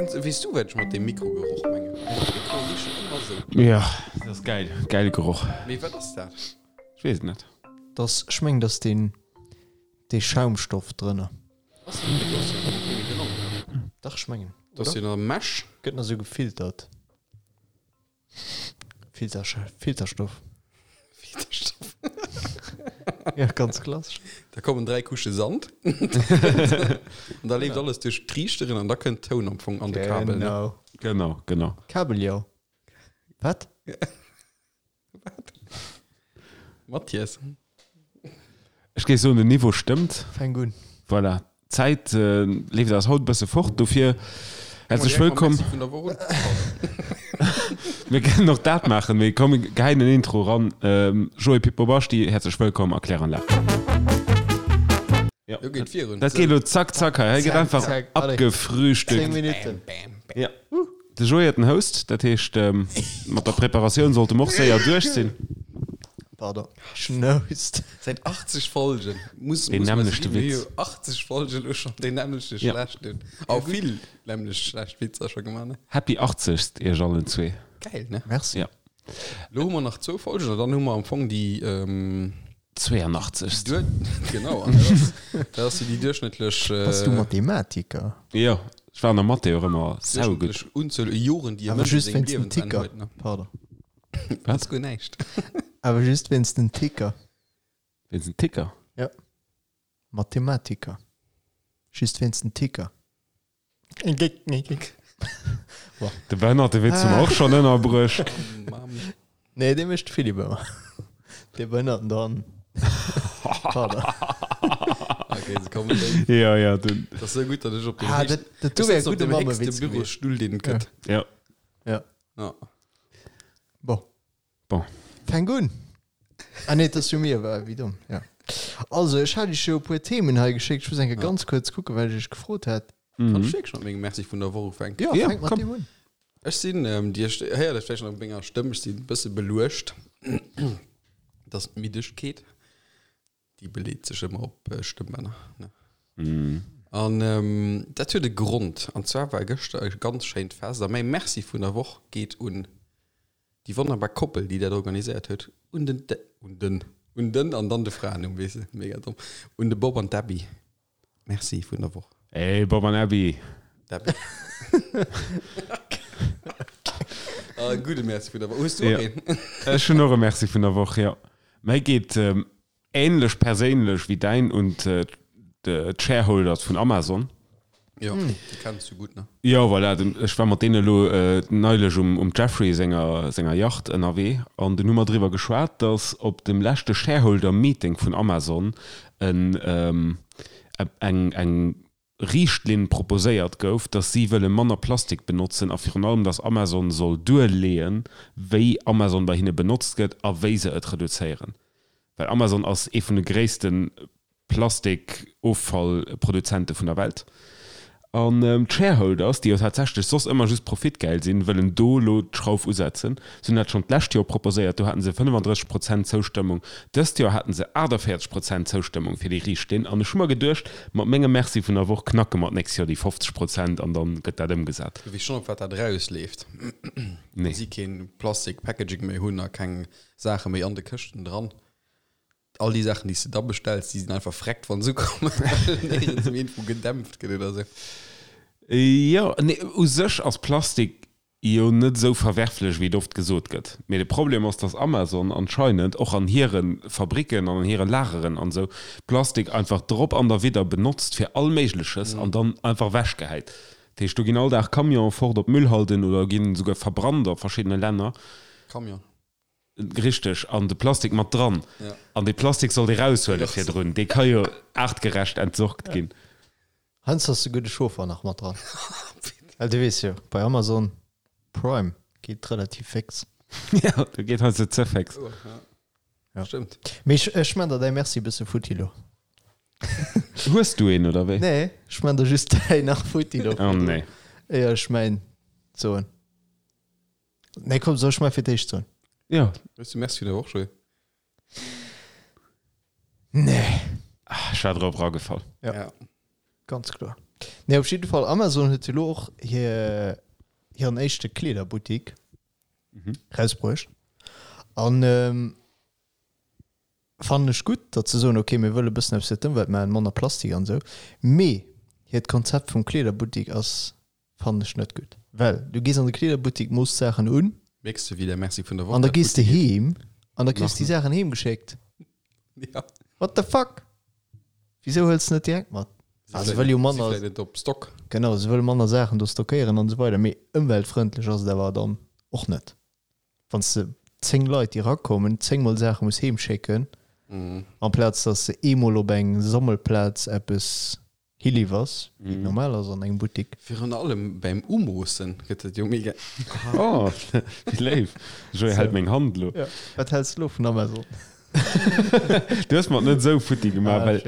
Kenns, weess du wat ech mat deem Mikrogeroch mengen? D'Mikroe richen ëmmer sou. Jo, dat ass gäil, gäile Geroch. Mee wat ass dat? Ech weess et net. Dass, ech mengen, dass deen, dee Schaumstoff drënner. Ass dat Mikro ass jo kee méi dran, oder? Dach, ech mengen, Dat ass oder? jo nach Mesh. Gëtt nach sou gefiltert. Filter, Filterstoff. Filterstoff. Ja, ganz klassesch. Da kommen 3 Couche Sand. An da leeft alles duerch d'Triichteren an da kënnt Toun am Fong an de Kabel. Ne? Genau. Genau, genau. Kabeljau. Wat? Wat? Mathias. Ech géif soen, den Niveau stëmmt. Fänk un. Voilà, d'Zäit leeft eis haut e bësse fort, dofir häerzlech wëllkomm. Mir kënnen och dat maachen, mee komm mir geheien en Intro eran. Joé Pippo Basti, häerzlech wëllkomm a Kläranlag. Jo, dat geet elo zack zack hei, hei gëtt einfach abgefrühstückt. 10 Minutten. Jo. De Joé huet den Host, dat heescht mat der Preparatioun sollte mer och séier duerch sinn. Pardon, Schnoust. Säit 80 Folgen muss Deen nämmlechte Witz. 80 Folgen elo schonn deen nämmlechte schlechten, a vill nämmlecht schlecht Witzer scho gemaach, ne? Happy 80. Iech allen zwee. Gäil, ne? Merci. Ja. Elo hu mer nach zwou Folgen an dann hu mer am Fong déi. 82. Duer, genau, an dat ass, dat ass jo déi duerchschnëttlech. Bass du Mathematiker? Jo, ech war an der Mathé och ëmmer saugutt. Duerchschnëttlech Unzuel u Joren, déi e Awer Mënsch a just sengem wéinst den Liewen dran Ticker. huet, ne? Pardon. Dat ass guer näischt. Awer just wéinst den Ticker. Wéinst den Ticker? Jo. Mathematiker. Just wéinst den Ticker. De behënnerte Witz hu mer och schonn ënnerbruecht. Nee, dee mécht de Philippe ëmmer. Dee Behënnerten do hannen. Pardon. Okay, se kommen déi. Ja, ja, den. Dat ass sou gutt, datt ech op dem Ah, héchsten, dat, dat do ech wär sëtzen op gudde dem héchste Mammewitz gewiescht. Bürostull, deen et gëtt. Ja. Ja. Ja. Bon. Bon. Fänk un! Ah nee, et ass jo mir, wa, wéi domm, ja. Also, ech hat iech jo e puer Themen hei geschéckt. Ech muss eng Kéier ganz kuerz kucken, wat ech iech gefrot hat. Kann ech wierklech mat mengem Merci vun der Woch ufänken? Jo, Ja, fänk mat komm. deem un. Ech sinn, Dir héiert et vläicht nach op menger Stëmm, ech sinn e bësse beluecht. Et ass d'Middegkeet. Déi beleet sech ëmmer op Stëmmbänner, ne? An dat huet e Grond. An zwar war gëschter e ganz schéint Fest a mäi Merci vun der Woch geet un déi wonnerbar Koppel, déi dat organiséiert huet, un den, un den, un den an dann de Fraennumm, weess de, mega domm, un de Bob an d'Abby. Merci vun der Woch. Hey Bob an Abby! D'Abby. Ah, gudde Merci vun der Woch. Hues du och een? Ech hunn och e Merci vun der Woch, jo. Mäi geet Ähnlech perséinlech wéi däin un d'Shareholders vun Amazon. Jo, déi kenns du gutt, ne? Jo, voilà, ech war mat deene elo neilech um Jeffrey senger senger Yacht ënnerwee an dunn hu mer driwwer geschwat, datt op dem leschte Shareholder Meeting vun Amazon en eng eng Riichtlinn proposéiert gouf, dass si wëlle manner Plastik benotzen a virun allem, dass Amazon soll duerleeën, wéi Amazon bei hinne benotzt gëtt a wéi se et reduzéieren. Well Amazon ass ee vun de gréisste Plastikoffallproduzente vun der Welt. An d'Shareholders, déi jo tatsächlech soss ëmmer just profitgäil sinn, wëllen do elo d'Schrauf usetzen. Si hunn dat schonn d'lescht Joer proposéiert, do haten se 35 Prozent Zoustëmmung. Dëst Joer haten se 48 Prozent Zoustëmmung fir déi Riichtlinn. An ech hu mer geduecht, mat mengem Merci vun der Woch knacke mer d'nächst Joer déi 50 Prozent an dann gëtt dat ëmgesat. Du weess schonn op wat dat erausleeft, Nee. wa si keen Plastik Packaging méi hunn a keng Saache méi an de Këschten dran. All déi Saachen déi s de da bestells, déi sinn einfach vreckt wann se ukommen, well néierens méi iergendwou gedämpft gëtt oder sou. Jo, nee, u sech ass Plastik jo net esou verwerflech wéi et oft gesot gëtt. Mee de Problem ass, dass Amazon anscheinend och an hire Fabricken an an hire Lageren an esou Plastik einfach drop an derwidder benotzt fir all Méigleches an dann einfach ewechgehäit. Dat heescht, do ginn all Dag Camionen fort op Müllhalden oder ginn esouguer verbrannt a verschiddene Länner. Camion. Richteg, an de Plastik mat dran. An dee Plastik sollt ee raushuele virdrun, dee ka jo aartgerecht entsorgt ginn. Heiansdo ass souguer de Chauffer nach mat dran. Well du weess jo, bei Amazon Prime geet et relativ féx. Jo, do geet heiansdo ze féx. Ja. Stëmmt. Mee ech, ech man der däi Merci e bësse futti lo. Hues du een, oder wéi? Nee, ech man der just däi nach futti lo. Oh nee. Éier ech mäin soen. Nee, komm, soll ech mäi fir d'éischt soen? Jo. Hues du Merci vun der Woch, Joé? Nee. Ech war drop eragefall. Ja. Ja. Ganz kloer. Nee, op jidde Fall, Amazon huet jo lo och hir, hiren éischte Kleederbuttik rausbruecht. An fannen ech gutt, datt se soen, okay, mir wëlle bëssen eppes fir d'Ëmwelt maachen, manner Plastik an esou. Mee hiert Konzept vum Kleederbuttik ass, fannen ech net gutt. Well du gees an de Kleederbuttik, mooss d'Saachen un. Mierks de, wéi der Merci vun der Woch An da gees de heem an da kriss déi Saachen heem geschéckt. Ja. What the fuck? Wisou hëls de net direkt mat? Ah, se wëll jo manner. Si vläit net op Stock. Genau, se wëll manner Saachen do stockéieren an esou weider. Mee ëmweltfrëndlech ass et awer dann och net. Wann s de 10 Leit, déi erakommen, 10 mol Saache muss heem schécken, amplaz datt s de eemol op eng Sammelplaz eppes hiliwwers, wéi et normal ass an engem Buttik. Virun allem beim Umoossen gëtt et jo mega. Oh, wéi léif. Joé hält meng Hand elo. Ja, wat häls de elo vun Amazon? Du hues mer et net esou futti gemaach, well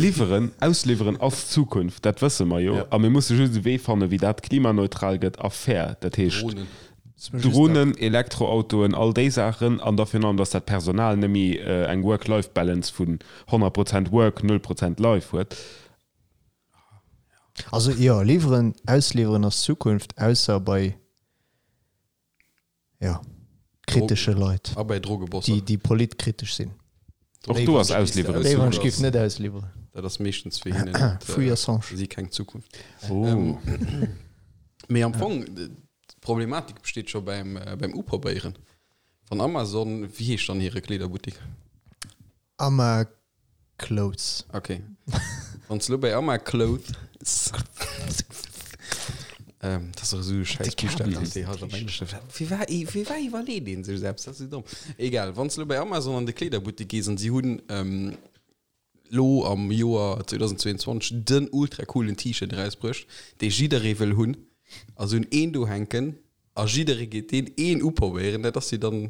liwweren, ausliwweren ass d'Zukunft, dat wësse mer jo. A mir musse just e Wee fannen, wéi dat klimaneutral gëtt a fair. Dat heescht Dronen, Elektroautoen, all déi Saachen. An da virun allem, dass dat Personal net méi eng Work-Life-Balance vun 100 Prozent Work, 0 Prozent Life huet. Also jo, liwweren, ausliwweren ass d'Zukunft, ausser bei Jo, kritesche Leit. A bei Drogebosser. Déi, déi politkritesch sinn. Och do ass Ausliwweren Déi ech géif net ausliwweren. Dat ass meeschtens fir hinnen net, Free Assange. Si keng Zukunft. Oh. Mee am Fong, d'Problematik besteet scho beim, beim Uprobéieren. Wann Amazon, wéi heescht dann hire Kleederbuttik? Ama Clothes. Ok. Wann s lo bei Ama Clothes ähm, dat ass och esou e schäiss Buchstaw, deen déi halt am Englesche. Firwat, firwat iwwerleet een sech eppes? Dat ass esou domm. Egal, wann s lo bei Amazon an de Kleederbuttek gees an si hunn ähm, lo am Joer 2022 den ultra coolen T-Shirt erausbruecht, dee jidderee wëll hunn, a se hunn een do hänken a jidderee geet deen een uprobéieren, dat ass jo dann.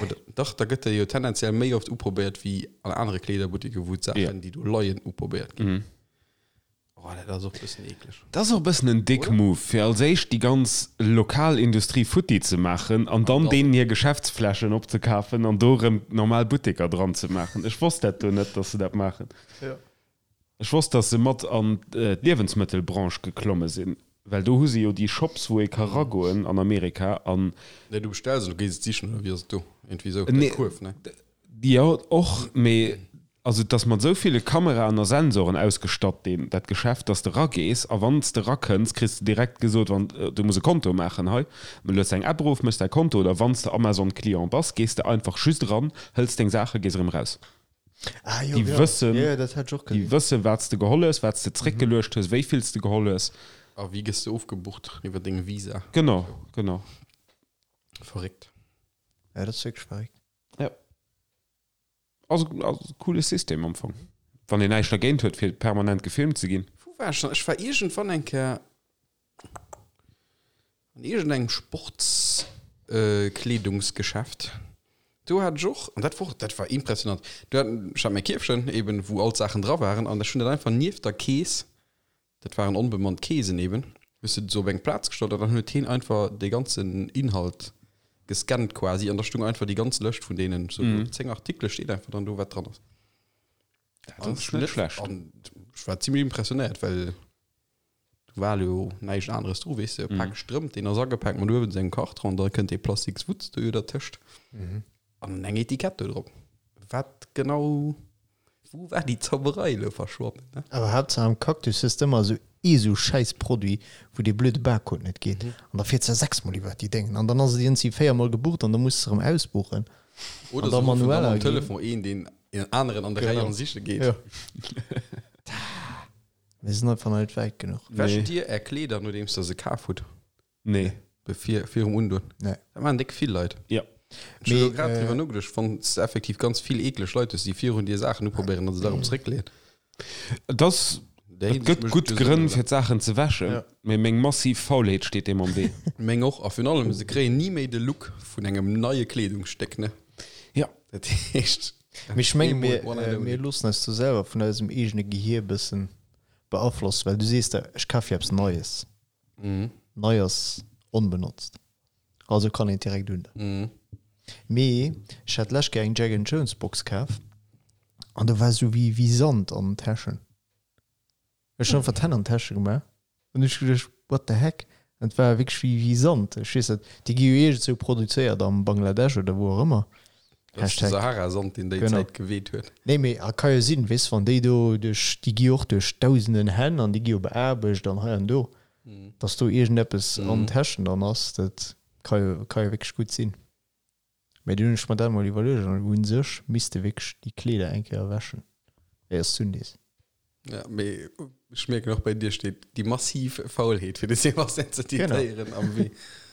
Oder, dach, da gëtt e jo tendenziell méi oft uprobéiert wéi an anere Kleederbuttiken, wou d'Saachen, déi do leien, uprobéiert ginn. Oh, dat ass och e bëssen eekleg. Dat ass och e bëssen en Dick Move, fir als éischt déi ganz lokal Industrie futti ze maachen an dann deenen hir Geschäftsflächen opzekafen an do erëm normal Butteker dran ze maachen. Ech wosst dat do net, dass se dat maachen. Ech wosst, dass se mat an d'Liewensmëttelbranche geklomme sinn, well do hu se jo déi Shops, wou ee ka ragoen an Amerika an. Nee, du bestells an du gees et sichen, oder wéi ass et do? Iergendwéi esou, däi Kuerf, ne? Jo, och, mee also et ass mat esou ville Kameraen a Sensoren ausgestatt, deen, dat Geschäft, dass de ragees a wann s de rakënns, kriss de direkt gesot, wann, du muss e Konto maachen hei, du lueds eng App erof, méchs däi Konto, oder wann s de Amazon-Client bass, gees de einfach just eran, hëls deng Saache, gees erëm eraus. Ah, jo, Déi ja. wëssen, Ja, ja, dat hat ech och déi gesinn. wëssen, wat s de geholl hues, wat s de zréckgeluecht hues, wéi vill s de geholl hues. A wéi gëss de ofgebucht? Iwwer deng Visa? Genau, genau. Verréckt. Ja, dat ass wierklech verréckt. Ja. Ass, ass e coole System am Fong. Wann een näischt dergéint huet, fir permanent gefilmt ze ginn. Wou war ech dann? Ech war iergendwann eng Kéier An iergendengem Sportskleedungsgeschäft, do hat ech och, an dat wor, dat war impressionant, do hat, ech hat mäi Kierfchen eben, wou all d'Saachen dra waren, an ech hunn dat einfach nieft der Kees, dat waren onbemannt Keesen eben, hues de se op eng Plaz gestallt an dann huet heen einfach dee ganzen Inhalt gescannt quasi an da stung einfach déi ganz Lëscht vun deenen, sou 10 Artikele steet einfach dann do, wat dran ass. Dat ass net schlecht. An ech war zimmlech impressionéiert, well Do war jo näischt aneres dru, weess de, e Pak Strëmp, deen ass agepaakt mat uewen sengem Karton, da kënnt dee plastiks Wutz do jo dertëscht an eng Etikett do drop. Wat genau, wou war déi Zauberei elo verschwonnen, ne? Awer Haaptsaach am Cactus hues de ëmmer esou ee sou schäiss Produit, wou dee blöde Barcode net geet an da fiers de sechsmol iwwert déi Déngen an dann ass et iergendwéi véiermol gebucht an da muss de erëm ausbuchen Oder an da se ruffen dann manuell am aginn. Telefon een, deen een aneren an der Rei Genau. an siche geet. Jo. Mir sinn einfach nach net wäit genuch. Wäscht dir är Kleeder nodeems der se kaf hutt? Nee. Bevir, virum Undoen? Nee. Dat maachen déck vill Leit. Ja. Ech hunn elo Mee, grad äh, driwwer nogeduecht, wann s de effektiv ganz vill eekleg Leit hues, déi virun dir Saachen uprobéieren an se da erëm zeréckleeën. Et ass, Där et gëtt Hinsicht mécht gutt et jo Sënn, Grënn oder? fir d'Saachen ze wäschen, Ja. mee meng massiv Faulheet steet deem am Wee. Meng och. A virun allem, se kréien ni méi de Look vun engem neie Kleedungsstéck, ne? Ja. Dat heescht. Mee ech menge mir, One and only. mir loossen eis do selwer vun eisem eegene Gehier e bëssen beaflossen, well du sees der, ech kaf jo eppes Neies. Nei ass onbenotzt, also kann een et direkt un. Mee ech hat d'lescht Kéier eng Jack and Jones Box kaf an do war esou wéi wéi Sand an den Täschen. Ech hunn einfach d'Hänn an d'Täsche gemaach an hu ech geduecht, what the heck? An et war wierklech wéi, wéi Sand. Ech weess net, déi gi jo iergendzwou produzéiert am Bangladesch oder wou och ëmmer. Dat ass de Hashtag. Sahara-Sand, deen déi Genau. Zäit geweht huet. Nee, mee a ka jo sinn, weess, wann déi do duerch, déi gi jo och duerch dausenden Hänn an déi gi jo beaarbecht an hei an do, dass do iergendeppes an Täschen dann ass, dat ka jo, ka jo wierklech gutt sinn. Mee dunn hunn ech mer dat emol iwwerluecht an u sech misst de wierklech déi Kleeder eng Kéier wäschen, éier s d'undees. Ja, mee ech mierken och bei dir steet déi massiv Faulheet fir de Sébastien ze zitéieren am Wee.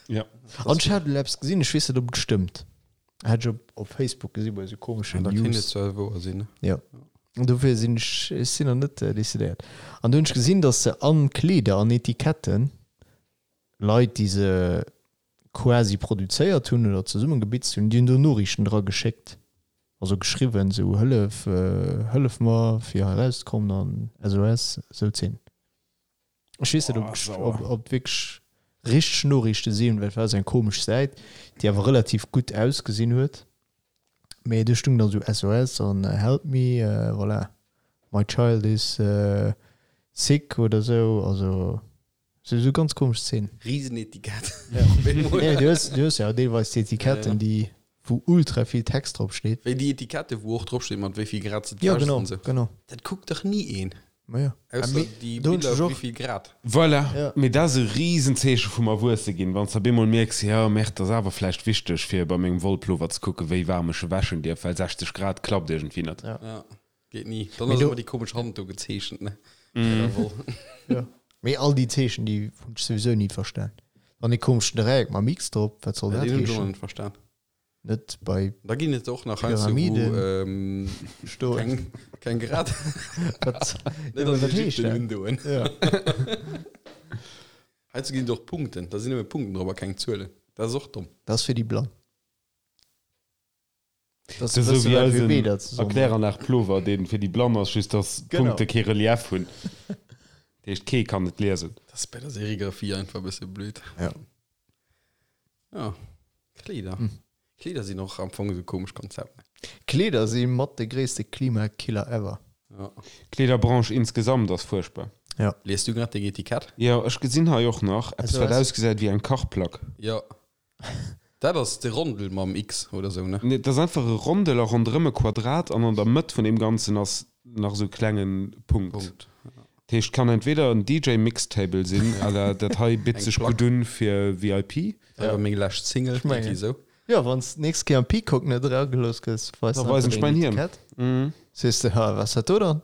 Ja. An ech hat elo eppes gesinn, ech weess net ob et stëmmt, hat ech op op Facebook gesi bei esou komeschen Da kéint et News. zwar wouer sinn, ne? Jo. An dofir sinn ech, ech sinn nach net decidéiert. An do hunn ech gesinn, datt se an Kleeder, an Etiketten, Leit déi se quasi produzéiert hunn oder zesummengebitzt hunn, déi hunn do Noriichten dra geschéckt, also geschriwwen, esou Hëllef, hëllef mer fir hei erauszekommen an SOS, esou Zeen. Ech weess net, ob ob et wierklech richteg Noriichte sinn, well et war esou eng komesch Säit, déi awer relativ gutt ausgesinn huet, mee do stung dann esou SOS an help me, voilà, my child is sick oder esou, also. Sou sou ganz komesch Szenen. Riesenetikett. Nee, du hues, du hues ja deelweis déi Etiketten, déi, wou ultra vill Text drop steet. Wéi déi Etikette, wou och drop steet, mat wéi vill Grad se Ja, d'wäschs genau, an sou. genau. Dat kuckt dach ni een. Ma ja. Ausser Mee déi do hunn Biller, ech och. wéi vill Grad. Voilà, Ja. mee dat ass e Riesenzeeche vum Erwuesse ginn, wann s de op eemol mierks, jo, merde, et ass awer vläicht wichteg, fir bei mengem Wollplover ze kucken, wéi waarm ech e wäschen dierf, well 60 Grad klappt iergendwéi net. Ja. Ja. Geet ni. Dann Mee ass do- ëmmer déi komesch Hand do gezeechent, ne? Bei der Woll. Ja. Mee all déi Zeechen, déi hunn ech souwisou ni verstan. Dann dee komeschen Dräieck mam X drop, wat soll Ja, dat deen hunn ech och nach heeschen? net verstan. Net bei Da ginn et och nach heiansdo, wou Pyramiden ähm, stoen. keng, keng Grad. Wat, Net ja, an wat heescht Ägypten dat? undoen. Ja. Heiansdo ginn et och Punkten. Da sinn nëmme Punkten drop a keng Zuelen. Dat ass och domm. Dat ass fir déi Blann. Dat ass esou wéi eisen Erkläranlag Plover, dee fir déi Blann ass, just datt d'Punkte kee Relief hunn. Dat heescht, kee kann et liesen. Dat ass bei der Serigraphie einfach e bësse blöd. Ja. Ja, Kleeder. Kleeder sinn och am Fong esou komesch Konzept, ne? Kleeder si mat de gréisste Klimakiller ever. Ja. D'Kleederbranche insgesamt ass fuerchtbar. Ja. Lies du grad deng Etikett? Jo, ech gesinn hei och nach eppes, wat ausgesäit wéi eng Kachplack. Jo. Dat ass de Rondel mam X oder sou, ne? Nee, dat ass einfach e Rondel a ronderëm e Quadrat an an der Mëtt vun deem Ganzen ass nach esou e klenge Punkt. Punkt, ja. Dat heescht, kann entweder en DJ-Mixtable sinn, à la dat hei bitt Eng sech Plack. gutt un fir VIP. Dat war meng lescht Single, Ech mengen. irgendwie sou. Jo, wann s d'nächst Kéier am Peacock net eragelooss gëss, weis Da einfach weisen ech deng mäin Hiem. Etikett. Sees de, ha, wat ass dat do dann?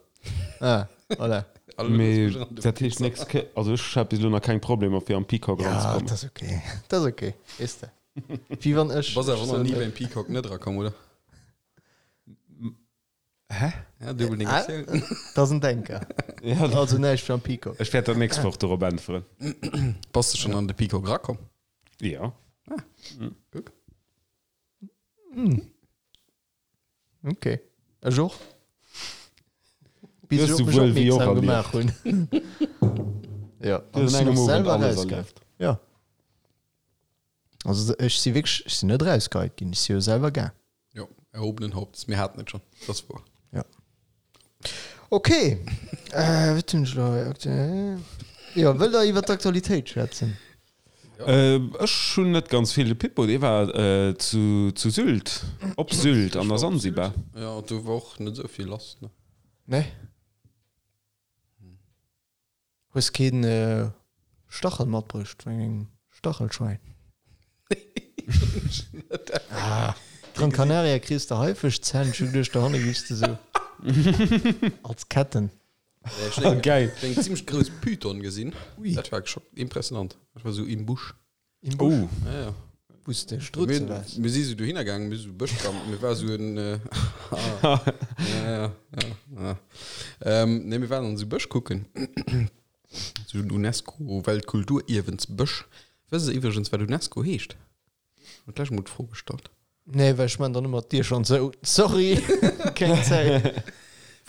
Ah, voilà. Alle Mee loosse mech ran, du dat heescht, Wichser. nächst Kéier, also ech hat bis elo nach keng Problemer fir am Peacock Ja, eranzekommen. dat ass okay. Dat ass okay, weess de. Wéi wann ech. Du bass awer ech nach sou ni net- beim Peacock net erakomm, oder? Hä? Ja, duebel Ah, Negatioun. Dat ass en Denker. Ja, Also näischt fir am Peacock. ech wäert dat nächst Woch dorop äntweren. Bass de schonn an de Peacock erakomm? Ja. Guck. Ok. Ech och. Bis Du ech hues op mech souwuel wéi och opmierksam erlieft. gemaach hunn. Ja. Du hues An an ech sinn engem och Owend selwer alles rausgaangen. erlieft. Ja. Also ech si wierklech, ech sinn net rausgeheit ginn, ech si jo selwer gaang. Jo, erhobenen Hauptes, mir haten et schonn. Dat ass wouer. Ja. Ok. Äh, wat hunn ech elo hei? Aktu- Jo, wëllt der iwwer d'Aktualitéit schwätzen? Ech hunn net ganz vill. De Pippo, dee war zu zu Sylt, op Sylt an der Sansibar. Jo, do war och net esou vill lass, ne? Nee. Hues keen Stachel matbruecht vun engem Stachelschwein? Ah, Gran Canaria kriss de Haifischzänn, ech hu geduecht dohanne giffs de sou als Ketten. Ech hunn eng, Geil. eng zimmlech grouss Python gesinn. Ui. Dat war scho impressionant. Dat war sou im Busch. Im Busch? Oh. Ja, ja. Wou s de Strutze Mir, waars? mir si sou dohinner gaangen, mir si sou Bësch gaangen, mir war sou en, äh, ja, ja, ja, ja. Ähm, nee, mir waren an sou Bësch kucken. Sou en UNESCO-Weltkulturierwensbësch. Wësst der iwwregens, wat UNESCO heescht? Huet lech mol d'Fro gestallt. Nee, well ech man dann ëmmer d'Dier schonn zou. Sorry, keng Zäit.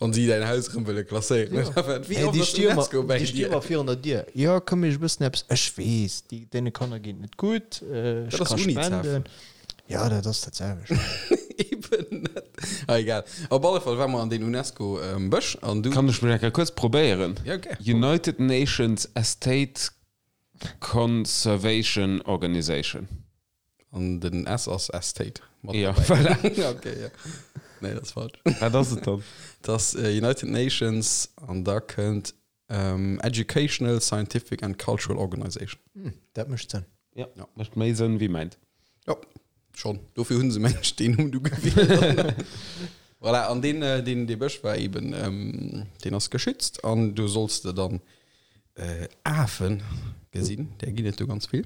Wann si däin Haus erëm wëlle klasséieren. Ja. Wéi Hey, oft déi ass sti ëmmer, UNESCO bei déi sti dir? ëmmer virun der Dier. Jo, komm ech e bëssen eppes. Ech weess, déi, deene Kanner geet net gutt. Ech Dat ass ka UNICEF. spenden. Ja, dat ass dat selwecht. Eben net. Ah, egal. Op alle Fall war mer an deen UNESCO Bësch an du. Kann ech mech eng Kéier kuerz probéieren? Ja, gär. United Nations Estate Conservation Organization. An den S ass Estate mat Ja, derbäi. voilà. Okay, ja. Nee, dat ass falsch. Wat ass et dann? Dat ass United Nations an da kënnt Educational, Scientific and Cultural Organization. Hm, dat mécht Sënn. Ja, mécht méi Sënn wéi mäint. Jo, schonn. Dofir hunn se mengen ech deen Numm du gewielt. Voilà, an deen, deen, dee Bësch war eben, deen ass geschützt an do solls de dann Afen gesinn, där ginn et do ganz vill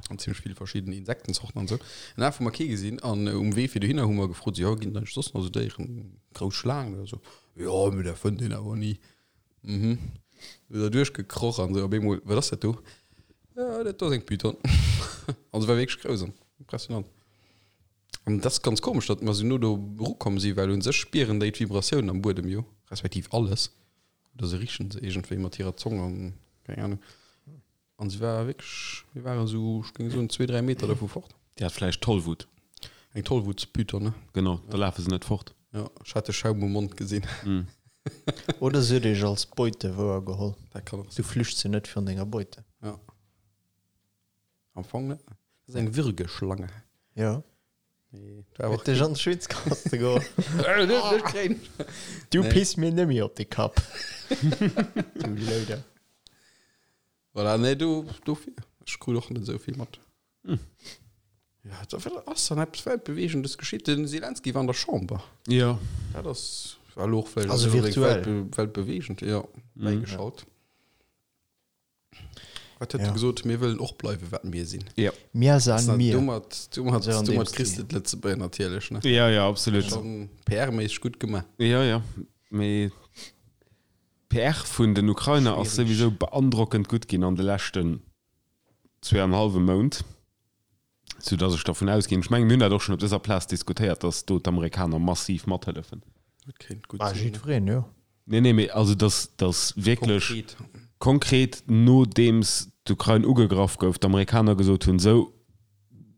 an zimmlech vill verschidden Insektenzorten an esou. En Af hu mer kee gesinn an um Wee fir dohinner hu mer gefrot, jo ginn et eigentlech soss nach esou Déieren, grouss Schlaangen oder esou? Jo, mee dat fënnt een awer ni. Mhm. Du da duerchgekroch an sou op eemol, wat ass dat do? Ja, dat do ass eng Python. An se war wierklech grouss an impressionant. An dat ass ganz komesch, datt mer sou no do erukomm si, well un sech spieren déi d'Vibratiounen am Buedem jo, respektiv alles. Oder se richen se iergendwéi mat hirer Zong an keng Ahnung. An se war wierklech, mir waren esou, ech géing soen, zwee, dräi Meter dovu fort. Déi hat vläicht Tollwut. Eng Tollwutspython, ne? Genau, da lafe se net fort. Jo, ech hat de Schaum um Mond gesinn. Oder se huet iech als Beute wouergeholl. Dat kann och Du sinn. flüchts jo net virun denger Beute. Ja. Am Fong net. Dat ass eng Würgeschlange. Jo. Nee, dat war Huet och dech an d'Schwitzkaste geholl. Net kréien. Du Nee. piss mir nemmi op de Kapp. Du Louder. Voilà, nee, do, dofir. Ech krut och net esou vill mat. Ja, da wat ass dann eppes Weltbewegendes geschitt? Den Zelensky war an der Chamber. Jo. Dat ass war elo och vläicht Also net unbedéngt virtuell. weltbe weltbewegend, jo, bäigeschalt. Wat huet Ja. e gesot? Mir wëllen och bleiwen, wat mir sinn. Jo. Mir san mir. Domat, domat, So an dem domat kriss Stil. de d'Lëtzebuerger natierlech, ne? Ja, ja, absolut. Schon PR-méisseg gutt gemaach. Jo, jo. Mee d'PR vun den Ukrainer ass Schwierig. souwisou beandrockend gutt ginn an de leschten zweeanenhallwe Mount, sou dass ech dervun ausginn, ech mengen, mir hunn dat och schonn op dëser Plaz diskutéiert, dass do d'Amerikaner massiv mathëllefen. Dat kéint gutt Bah, sinn. jiddwereen, jo. Nee, nee, mee also dass, dass wierklech Konkret. konkret, nodeems d'Ukrain ugegraff gouf, d'Amerikaner gesot hunn, sou,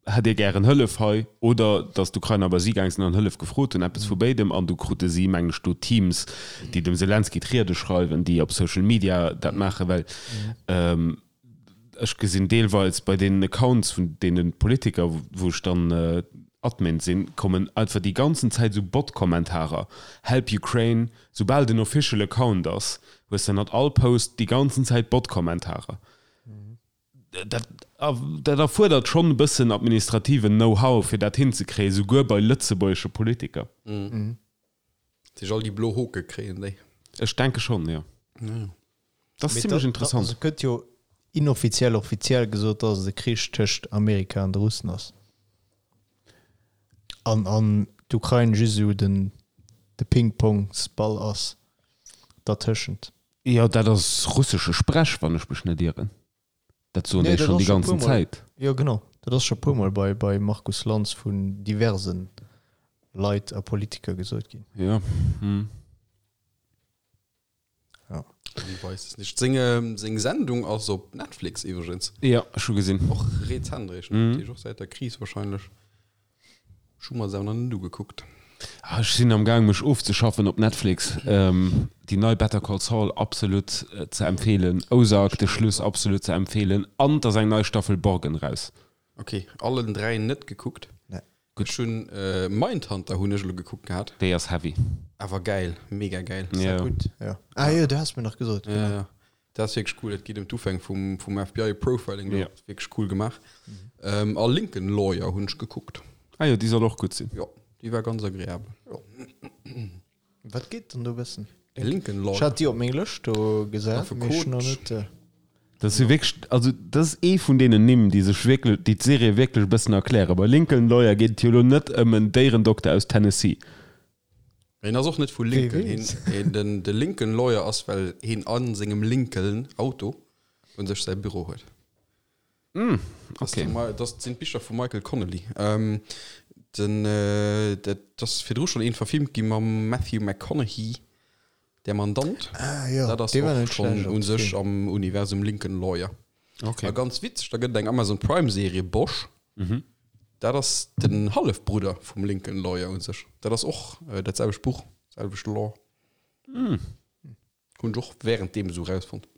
hätt Dir gären Hëllef hei, oder dass d'Ukrainer bei si gaang sinn an Hëllef gefrot hunn, eppes vu béidem. An du krute si, mengen ech, do Teams, déi dem Selenskyj d'Riede schreiwen, déi op Social Media dat maachen, well Ech gesinn deelweils bei deenen Accounts vun deene Politiker, wou ech dann Admin sinn, kommen einfach déi ganzen Zäit esou Bot-Kommentarer, Help Ukraine. Soubal den official Account ass, hues de ënnert all Post déi ganzen Zäit Bot-Kommentarer. Dat dat erfuerdert schonn e bëssen administrativen Know-how, fir dat hinzekréien, souguer bei lëtzebuergesche Politiker. Sech all déi blo Hoke kréien déi. Ech denke schonn, jo. Dat ass zimlech interessant. Also gëtt jo inoffiziell offiziell gesot, datt et e Krich tëscht Amerika an de Russen ass. An an d'Ukrain just esou den de Ping-Pongs-Ball ass dertëschent. Jo, dat ass russesche Sprech, wann ech mech net ieren. Dat soen Nee, déi dat schonn ass déi scho ganzen puer Mol. Zäit. Jo genau, dat ass scho puer Mol bei bei Markus Lanz vun diversen Leit a Politiker gesot ginn. Jo. Hm. Ja. Man weiß es nicht. Seng, seng Sendung ass op Netflix iwwregens. Ja, ech hu gesinn. Och rezent eréischt, Mhm. dat heescht och säit der Kris wahrscheinlech. Ech hu mer se awer nach net ugekuckt. Ah, ech sinn am Gaang mech ofzeschaffen op Netflix. Déi nei Better Call Saul absolut ze empfeelen, Ozark de Schluss absolut ze empfeelen an et ass eng nei Staffel Borgen raus. Ok, allen 3 net gekuckt. Nee. Gutt. Ech hunn Mindhunter hunn ech elo gekuckt gehat. Déi ass heavy. Awer gäil, mega gäil. Ja. Gutt, ja. Ah jo, du has mir nach gesot, Ja, genau. ja. Dat ass wierklech cool. Et geet ëm d'Ufäng vum, vum FBI Profiling do. Ja. Wierklech cool gemaach. Ähm, a Lincoln Lawyer hunn ech gekuckt. Ah jo, déi soll och gutt sinn. Jo, déi war ganz agreabel. Jo. Wat geet dann do bëssen? De Lincoln Ech Lawyer. hat déi op meng Lëscht do gesat, mee ech hunn nach net. Dat ass jo wierklech, also dat ass ee vun deenen Nimm, déi sech wierklech, déi d'Serie wierklech e bëssen erklären. Bei Lincoln Lawyer geet et jo elo net ëm en Déierendokter aus Tennessee. Hien ass och net vu Lincoln. Hien, hien, den, de Lincoln Lawyer ass, well hien a sengem Lincoln Auto un sech säi Büro huet. Mm, Das, okay. okay. das sinn d'Bicher vum Michael Connelly. Ähm, den, äh, dat ass virdru schonn een verfilmt gi mam Matthew McConaughey, Der Mandant. Ah jo, Dat ass dee war och net schonn schlecht un als sech Film. am Universum Lincoln Lawyer. Okay. A ganz witzeg, da gëtt et eng Amazon Prime Serie, Bosch. Mhm. Dat ass den Hallefbrudder vum Lincoln Lawyer u sech. Dat ass och dat selwecht Buch, selwecht Lore. Hunn ech och wärend deem esou rausfonnt.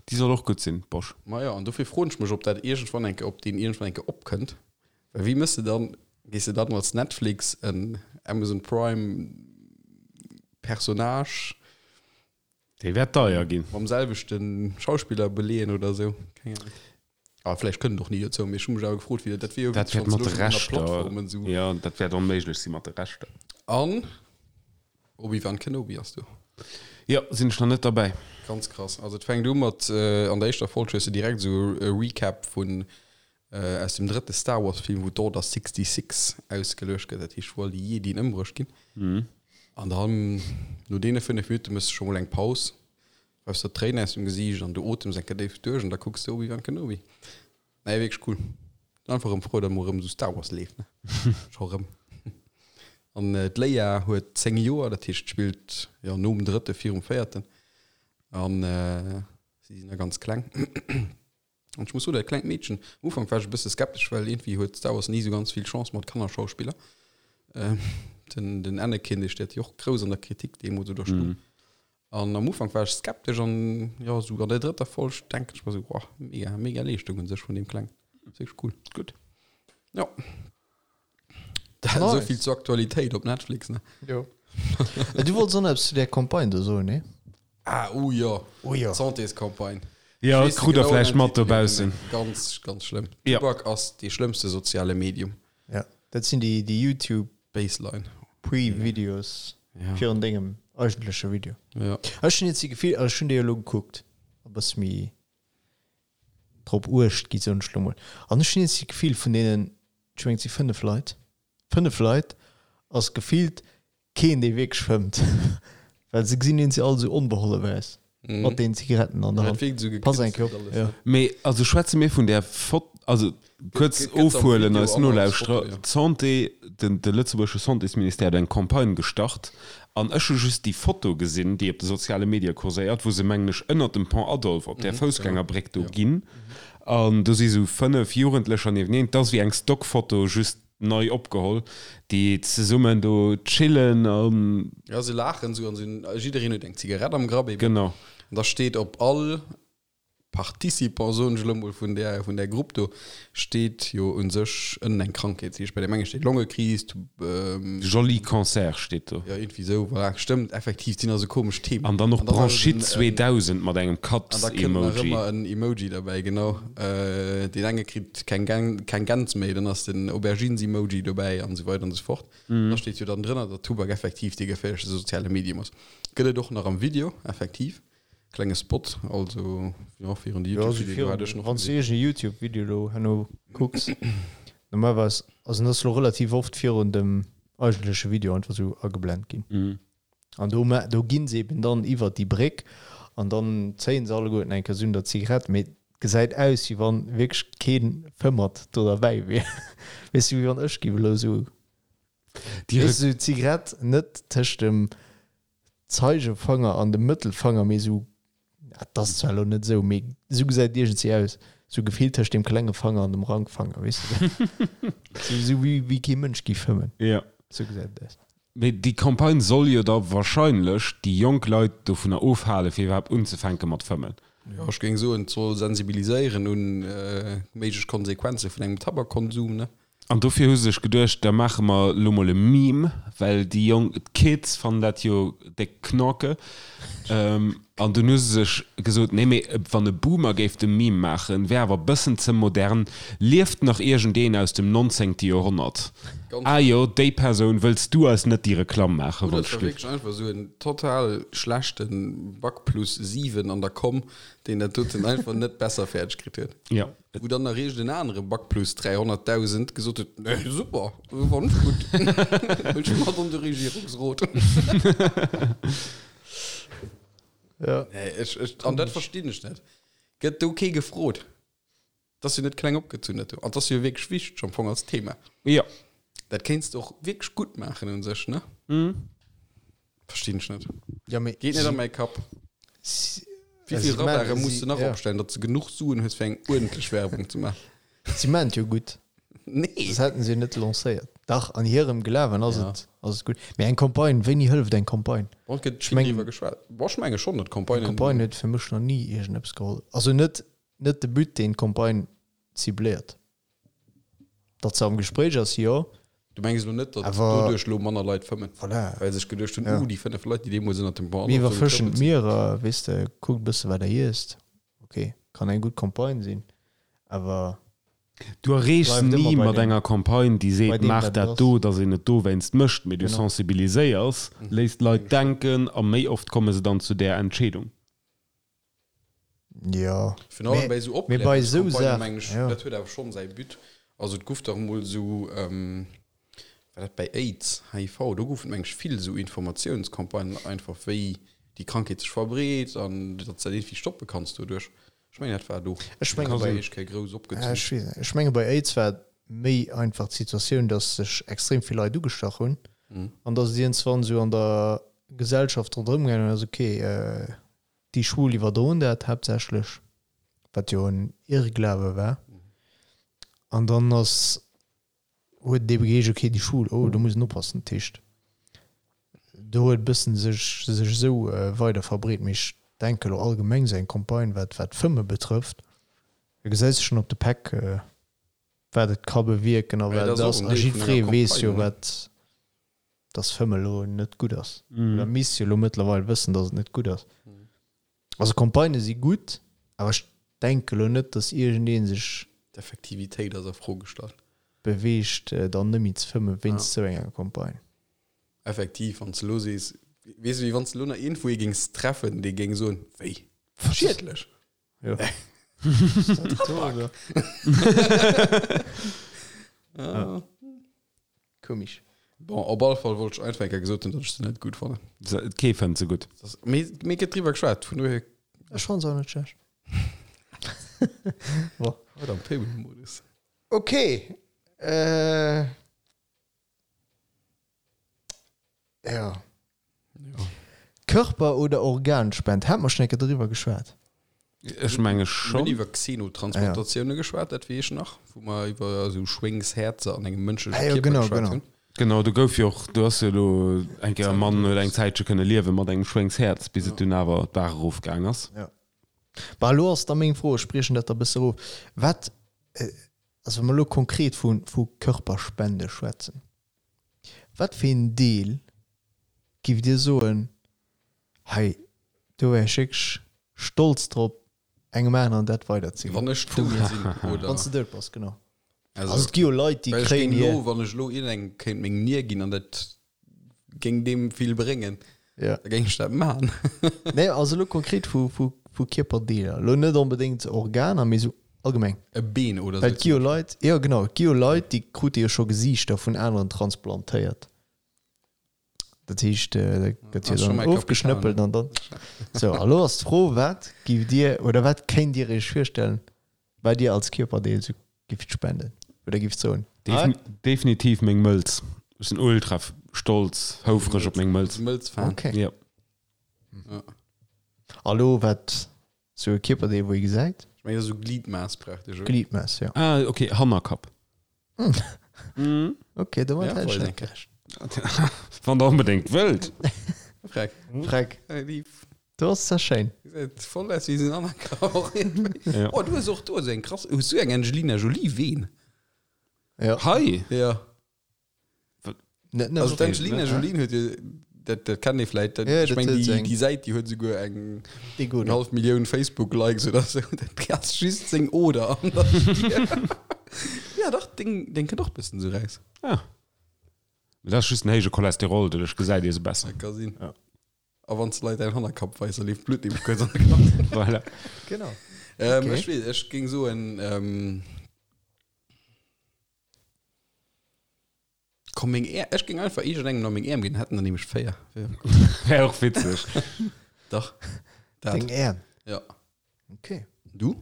Déi soll och gutt sinn, Bosch. Majo, an dofir froen ech mech, ob dat iergendwann eng Kéier, ob deen iergendwann eng Kéier opkënnt. Well wéi mëss de dann, gees de dann als Netflix en Amazon Prime Personnage Dee wäert deier ginn. mam selwechte Schauspiller beleeën oder esou? Keng Ahnung. A vläicht kënnt et och ni dozou, mee ech hu mech awer gefrot, wéi dat, dat wier jo Dat wierklech, wäert wann mat se de elo schonn ënner Rechter, Plattformen esou. jo, dat wäert onméiglech si mat de Rechter. An Obi-Wan Kenobi ass do. Jo, sinn ech nach net derbäi. Ganz krass. Also et fänkt u mat, an der éischter Folg hues de direkt esou e Recap vun aus dem drëtte Star Wars Film, wou d'Order 66 ausgeluecht gëtt, dat heescht wou all déi Jedien ëmbruecht ginn. An dann no deene 5 Minutte méchs de scho mol eng Paus, reifs der d'Tréinen aus dem Gesiicht an du otems eng Kéier déif duerch an da kucks de Obi-Wan Kenobi. Nee, wierklech cool. Sinn einfach erëm frou, datt mol erëm esou Star Wars leeft, ne? Scho erëm. An d'Leia huet 10 Joer, dat heescht spillt jo nom drëtte virum véierten. An si sinn nach ganz kleng. An ech muss soen, dat klengt Meedchen, am Ufank war ech e bësse skeptesch, well iergendwéi huet Star Wars ni esou ganz vill Chance mat Kannerschauspiller. Den, den Anakin, dee steet jo och grouss an der Kritik deemools oder stung. An am Ufank war ech skeptesch an jo, esou an der drëtter Folg denken ech mer esou, Wow, mega, mega Leeschtung un sech vun deem Klengen. Ass wierklech cool. Gutt. Jo. Dat Nice. esou vill zur Aktualitéit op Netflix, ne? Jo. Du wollts och nach eppes zu där Campagne do soen, nee? Ah, oh jo. Oh jo. D'Santéscampagne. Jo, Ech weess de krut der genauen vläicht mat Titel net dobaussen. méi. Ganz, ganz schlëmm. Ja. Tubak ass dee schlëmmste soziale Medium. Ja, dat sinn déi, déi YouTube Baseline. Pre-Videos Ja. virun dengem eigentleche Video. Ja. Ech hunn jetzt déi Gefill, also ech hunn déi elo gekuckt, e bësse méi drop uecht gi soen ech lo mol. An ech hunn jetzt déi Gefill vun deenen, ech mengen et si 5 Leit, 5 Leit ass gefillt keen dee wierklech fëmmt, well se gesinn eens all esou onbehollew aus mat deenen Zigaretten an der Dat Hand. wierkt esou Pass eng Kéier gekünstelt op, alles, jo. ne? Mee also schwätze mir vun där Fot, also kuerz Gëtt am ofhuelen Video eis an als Nolauschterer, Foto, jo. d'Santé, den de lëtzebuergesche Santésministère huet eng Campagne gestart an ech hu just déi Foto gesinn, déi op de soziale Medie kurséiert, wou se mengen ech ënnert dem Pont Adolphe op där Foussgängerbréck do ginn an do si sou 5 Jugendlecher nieweneen, 't ass wéi eng Stockfoto, just nei opgeholl, déi zesummen do chillen an. Jo, se laachen esou an se hunn, jiddereen huet eng Zigarett am Grapp eben. Genau. An da steet op all Participant, soen ech elo mol, vun där, vun där Grupp do steet jo u sech ënnen eng Krankheet. Dat heescht, bei deem enge steet Longekris, Joli Cancer steet do. Jo, iergendwéi esou, voilà. Stëmmt, effektiv, et sinn also komesch Themen. An dann och An dann ass et Bronchite en, 2000 mat engem An da kënnt nach Katz-Emoji. ëmmer en Emoji derbäi, genau. Deen enge kritt keng Gän, keng Gäns méi, dann ass den Aubergines-Emoji dobäi an esou weider an esou fort. Da steet jo dann drënner, datt Tubak effektiv dee geféierlechste soziale Medium ass. Gëtt et och nach am Video, effektiv. Klenge Spot, also jo, virun de Jo, also YouTube-Video hat ech virun, nach wann s du gesinn. iergend e YouTube-Video elo herno kucks, normalerweis, also en ass elo relativ oft virun dem eigentleche Video einfach esou ageblent ginn. An do ma do ginn se eben dann iwwert déi Bréck an dann zéien se alleguerten eng Kéier esou un der Zigarett, mee et gesäit aus, wéi wann wierklech kee Fëmmert do derbäi wier. Weess du, wéi wann ech géif elo esou, Déi weess du, esou d'Zigarett net tëscht dem Zeigefanger an dem Mëttelfanger, mee esou, dat ass zwar elo net esou, mee esou gesäit et iergendwéi aus, esou gefillt tëscht dem klenge Fanger an dem Rankfanger, weess de, esou esou wéi wéi kee Mënsch géif fëmmen, Ja. esou gesäit et aus. Mee déi Campagne soll jo da wahrscheinlech déi jonk Leit dovunner ofhalen, fir iwwerhaapt unzefänke mat fëmmen. Jo, ech géing soen, et soll sensibiliséieren un méiglech Konsequenze vun engem Tabakkonsum, ne? An dofir hu se sech geduecht, da maache mer elo mol e Meme, well déi Jonk, d'Kids fannen dat jo déck knorke. An dunn hu se sech gesot, nee mee wann e Boomer géif de Meme maachen, wär awer e bëssen ze modern. Lieft nach iergendeen aus dem nonzéngte Joerhonnert? Ganz Ah jo, déi Persoun, wëlls du eis net déi Reklamm maachen, Oder wann et war ech. wierklech einfach esou en total schlechte Bac plus 7 an der Komm, deen dat doten einfach net besser fäerdeg kritt huet. Jo. Wou dann nach iergend en anere Bac plus 300.000 gesot huet, Nee, super, fannt ech gutt, wëll ech mat an de Regierungsrot. Ja. Nee, ech, ech, an dat verstinn ech net. Gëtt do kee gefrot? Dat ass jo net kleng opgezunn, dat do. An dat ass jo wierklech wichteg am Fong als Thema. Jo. Dat kéints de och wierklech gutt maachen un sech, ne? Verstinn ech net. Ja, mee Geet net an mäi Kapp. si, Wéi si vill Radare man- muss si- de nach ja. opstellen, datt s de genuch Suen hues fir eng uerdentlech Werbung ze maachen? Si maan et jo gutt. Nee. Soss hätten se jo net lancéiert. Dach, an hirem Glawen ass et, ass et gutt. Mee eng Campagne, wéini hëlleft eng Campagne? Bon, et gëtt Ech vill mengen, driwwer geschwat. Bon, ech menge schonn, datt eng Campagnen. Campagne huet fir mech nach ni iergendeppes geholl. Also net, net de But, deen d'Campagne cibléiert. Datt se am Gespréich ass, jo. Du mengs elo net, datt Awer doduerch elo manner Leit fëmmen, voilà. well sech geduecht hunn, Ja. Uh, déi 5 Leit, déi deemools ënnert dem Pont Mir Adolphe sou iwwerfëschen getrëppelt sinn. d'Mierer, weess de, kuckt e bësse wat der iesst. Ok, kann eng gutt Campagne sinn, awer Du erreechs bleift ni ëmmer bei mat deem, enger Campagne, déi bei seet, deem maach wat et dat ass. do, datt een et dowéinst mécht, mee du Genau. sensibiliséiers, léiss d'Leit denken a méi oft komme se dann zu där Entscheedung. Jo, Virun allem mee, bei esou mee bei esou Opklärungscampagnen, Saachen, mengen ech, jo. dat huet awer schonn säi But. Also et guff dach emol esou, war dat bei Aids, HIV, do goufen et meng ech vill esou Informatiounscampagnen einfach, wéi déi Krankheet sech verbreet an datt s dat iergendwéi stoppe kanns doduerch. Ech mengen dat war do. Ech menge Dat bei, ass éischt Kéier grouss ja, opgezunn. ech weess net, ech menge bei Aids war et méi einfach d'Situatioun, datt sech extrem vill Leit ugestach hunn an datt et iergendswann esou an der Gesellschaft ronderëm gaangen ass, okay, Déi Schwul iwwerdroen dat haaptsächlech, wat jo en Irrglawe war. An dann ass, huet et ebe geheescht, okay, déi Schwul, oh, do muss een oppassen. Dat heescht, do huet e bëssen sech sech esou weider verbreet. Mee ech denke elo allgemeng esou eng Campagne, wat wat d'Fëmme betrëfft, da gesäis de schonn op de Päck, wat et ka bewierken a Mä wat dat et ass ass. och en A Deel vun enger jiddweree weess jo, Campagne, ne? wat dass Fëmme elo net gutt ass. Oder misst jo elo mëttlerweil wëssen, dass et net gutt ass. Also Campagnë si gutt, awer ech denke elo net, dass iergendee sech. D'Effektivitéit ass a Fro gestallt. Beweegt, dann net méi ze fëmme wéinst esou enger Campagne. Effektiv, wann s de elo sees, weess de, wéi wann s de elo nach iergendwou ee géings treffen, dee géing soen, Wéi? Schiedlech? Jo. Tabak! Ja. Komisch. Bon, op alle Fall wollt ech einfach eng Kéier gesot hunn, datt ech se net gutt fannen. Kee fënnt se gutt. Mee, mee gëtt driwwer geschwat, vun dohier. Ech fann se och net schlecht. Bon. Haut am Payment-Modus. Ok. Äh. Ja. Ja. Körper oder Organspend, hat mer schon eng Kéier driwwer geschwat? Ech menge Mir schonn. hunn iwwer Xenotransplantatiounen geschwat, dat weess ech nach, wou mer iwwer esou Schwéngshäerzer an engem mënschleche Ah jo, Kierper genau, geschwat genau. hunn. Genau, do gouf jo och, do ass jo elo eng Kéier e Mann huet eng Zäitche kënne liewe mat engem Schwéngshäerz, bis et dunn awer d'Baach erofgaang ass. Ja. Bah, elo ass da meng Fro, ech briechen dat da bësse erof, Wat, also wa mer elo konkret vu, vu Körperspende schwätzen, Wat fir een Deel giff Dir soen, hei do wär ech wierklech stolz drop engem aneren dat weider ze ginn? Wann ech dout sinn, oder? Wann s de dout bass, genau. Also, Also et gi jo Leit déi well ech kréien géing hir. elo, wann ech elo iergendengem kéint meng Nier ginn an dat géing deem vill bréngen, Ja. da géing ech dat maachen. Nee, also elo konkret vu, vu, vu Kierperdeeler. Elo net onbedéngt Organer, mee esou allgemeng. E Been oder Well sou et gi jo Leit, jo genau, et gi jo Leit, déi krute jo scho Gesiichter vun aneren transplantéiert. Dat heescht, da gëtt jo dann ofgeschnëppelt an dann. Sou, a lo ass d'Fro, wat giff Dir oder wat kéint Dir Iech virstellen, wat Dir als Kierperdeel sou gifft spenden oder gifft soen? Definitiv meng Mëlz. Ech sinn ultra stolz, houfreg op meng Mëlz. Mëlz-Fan. Okay. Jo. A lo wat Sou e Kierperdeel wou ee gesäit. Ech mengen esou Gliedmaß praktesch, oder? Gliedmaß, jo. Ah, okay, Hannerkapp. Okay, domat Ja, hätt ech voll net gerechent. Wann der onbedéngt wëllt. Freck. Freck, Hey, lief. do ass zwar schéin. Gesäit voll aus wéi seng Hannerkapp. Ja. Oh, du hues och do esou eng krass, hues du eng Angelina Jolie Veen? Ja. Hei! Ja. Net nëmmen Also d'Angelina ne? Jolie huet jo, dat, dat kennt ee vläit, dat, Ja, ech dat meng huet déi, eng- déi Säit, déi huet souguer eng Déi gutt. eng hallef Millioun Facebook-Likes oder sou. Dat ass just seng Oder an der Stier. Ja dach, deng, deng kënnt och bëssen sou raus. Ah. Dat ass just den héije Cholesterol, doduerch gesäit ee se besser. Dat ka sinn. Ja. A wann s de Leit däin Hannerkapp weis, da leeft d'Blutt nämlech kuerz an de Kapp. Voilà. Genau. Ähm, Okay. Ech weess, ech géing soen, ähm, Komm meng Äerm, ech géing einfach iergendengem nach meng Äerm ginn, hätten der nämlech 4. Wär och witzeg. Dach. Dat. Deng Äerm? Ja. Okay. Du?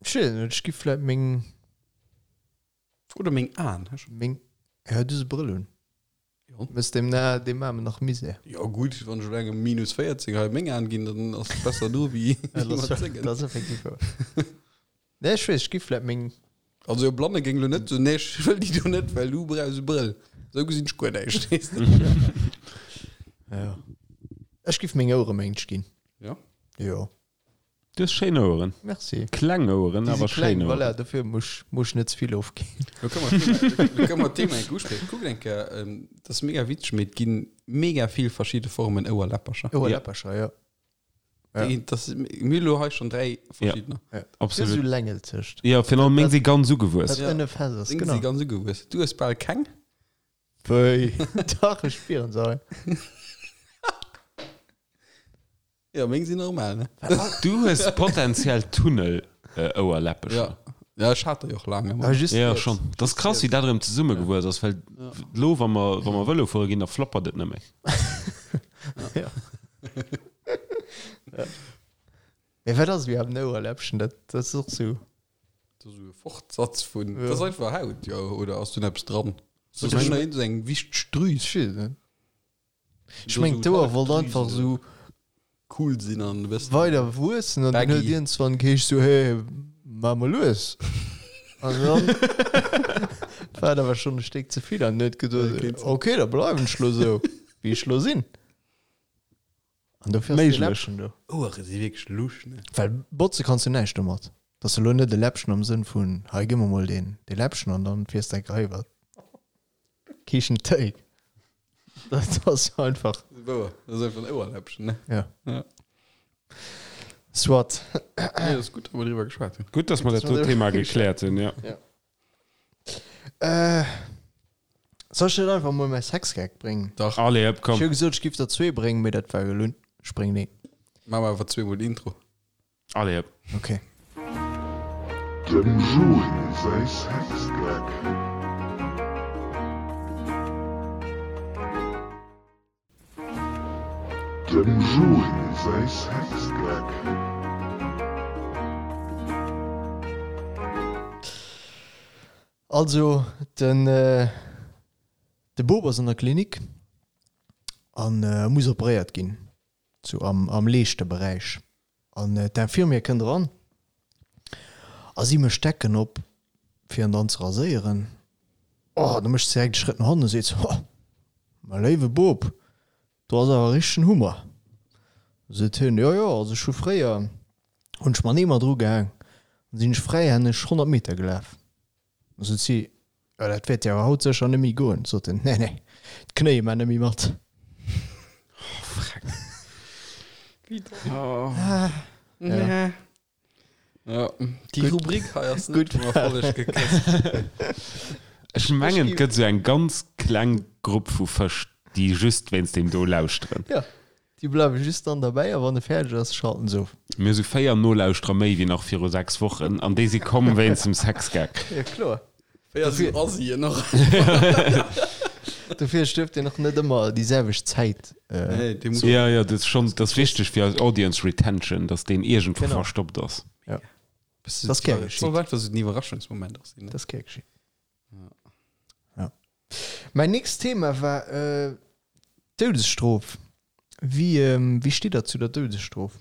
Ech weess et net, ech gi vläit meng. Oder meng Aen. Meng, ja, du hues e Brëll un. Jo. Mëss dem na dem Aarmen nach Misär. Jo gutt, wann ech elo engem minus 14 hei meng Aen ginn, dann ass et besser do wéi Ja, dat mat ass, sengen. dat ass effektiv wouer. Nee, ech weess, ech giff vläit meng. Also e Blanne géing lo net soen, nee, ech wëll déi do net, well du brauchs e Brëll. Esou gesinn ech guer näischt, weess de. Ja. Ech giff meng Ouere mengt ginn. Ja? Jo. Du hues schéin Oueren. Merci. Kleng Oueren, Déi si awer kleng, schéin Oueren. voilà, dofir muss ech net ze vill ofginn. Lo kënne mer d'Thema, lo kënne mer d'Thema enk uspriechen. Kuckt eng Kéier, dat ass mega witzeg, mee et gi mega vill verschidde Formen Ouerläppercher. Ouerläppercher, ja. Ja. Déi, das, mir hu lo hei schon dräi verschiddener. Ja. Absolut. Esou längelzegt. Ja, virun allem meng si ganz ugewuess. Dat ënne fest ass, Deng genau. si ganz ugewuess. Du hues bal keng. Wéi? Dach, ech spieren se hei. Ja, meng sinn normal, ne? Du hues potenziell Tunnel-Ouerläppecher. Ja. Ja, ech hat der jo och laang ëmmer. Ah, just Ja, riets. schon. Dat ass krass, wéi dat erëm zesummegewuess ass, well lo, wa mer, wa mer Vëlo fuere ginn, da flappert et net méi. Ja. ja. Mee wat ass iwwerhaapt en Ouerläppchen? Dat, dat ass och sou. Dat ass esou e Fortsatz vun, Ja. dat ass einfach Haut, jo, oder ass do eppes dran? Oder Dat ass ech- eng, eng wichteg Drüs. Ech weess et net. Ech meng, d'Ouer wollt einfach sou cool sinn an e bëssen weider wuessen an dann baggy. huet iergendswann geheescht sou, hey, maach mol lues. An dann war et awer schonn e Stéck ze vill an huet geduet, okay, da bleiwen ech lo sou, wéi ech lo sinn. An dofir ass dee Méiglech. Läppchen do. Ouere si wierklech lusch, ne? Well botze kanns du näischt domat. Dat ass elo net e Läppchen am Sënn vun, hei gi mer mol deen, dee Läppchen an dann fiers de enk hei iwwer Kichen Téi. Dat ass einfach. Wouer, dat ass einfach en Ouerläppchen, ne? Ja. Ja. Soit. Nee, dat ass gutt, datt mer driwwer geschwat hunn. Gutt, dass mer dat do Thema gekläert hunn, ja. Ja. Äh, soll ech net einfach mol mäi Sexgag bréngen? Dach. Allez, hëpp, komm. Ech hu gesot, ech giff der zwee bréngen, mee dat war gelunn. Ech bréngen een. Maache mer awer zweemol den Intro. Allez hëpp. Ok. Dem Jury säi Sexgag. Dem Jury säi Sexgag. Also, den de Bop ass an der Klinik an muss operéiert ginn. Sou am, am Leeschteberäich. An d'Infirmière kënnt eran a si mécht d'Decken op, fir en dann ze raséieren. Oh, da mécht se direkt e Schrëtt no hannen a seet se, Ho, mäi léiwe Bop, do ass awer e richtegen Hummer. Da seet hien, Jo, jo, also ech hu fréier, hunn ech mer en Eemer drugehaang, dann sinn ech fräihänneg 100 Meter gelaf. Da sot si, Jo, dat wäert dir awer haut sécher net méi goen. Sot en, Nee, nee, d'Knéie man net méi mat. Ja. Ja, déi Rubrik hei ass net vum Erfolleg gekësst. Ech mengen, et gëtt esou eng ganz kleng Grupp vu Fësch, déi just wéinst deem do lauschteren. Ja, déi bleiwe just dann derbäi a wann e fäerdeg ass, schalten se of. Mir hu sou 4 Nolauschterer méi wéi nach viru 6 Wochen an déi si komm wéinst dem Sexgag. Ja, kloer. 4 sou Asien och. Dofir duerft een och net ëmmer déi selwecht Zäit. Nee, dee muss. Ja, ja, dat ass schonn, dat ass wichteg fir eis Audience Retention, dass deen iergendwou Genau. verstoppt ass. Ja. Das Das ass gär geschitt. Soll einfach sou den Iwwerraschungsmoment och sinn, ne? Dat ass gär geschitt. Ja. Mäin nächst Thema war d'Doudesstrof. Wéi, wéi steet der zu der Doudesstrof?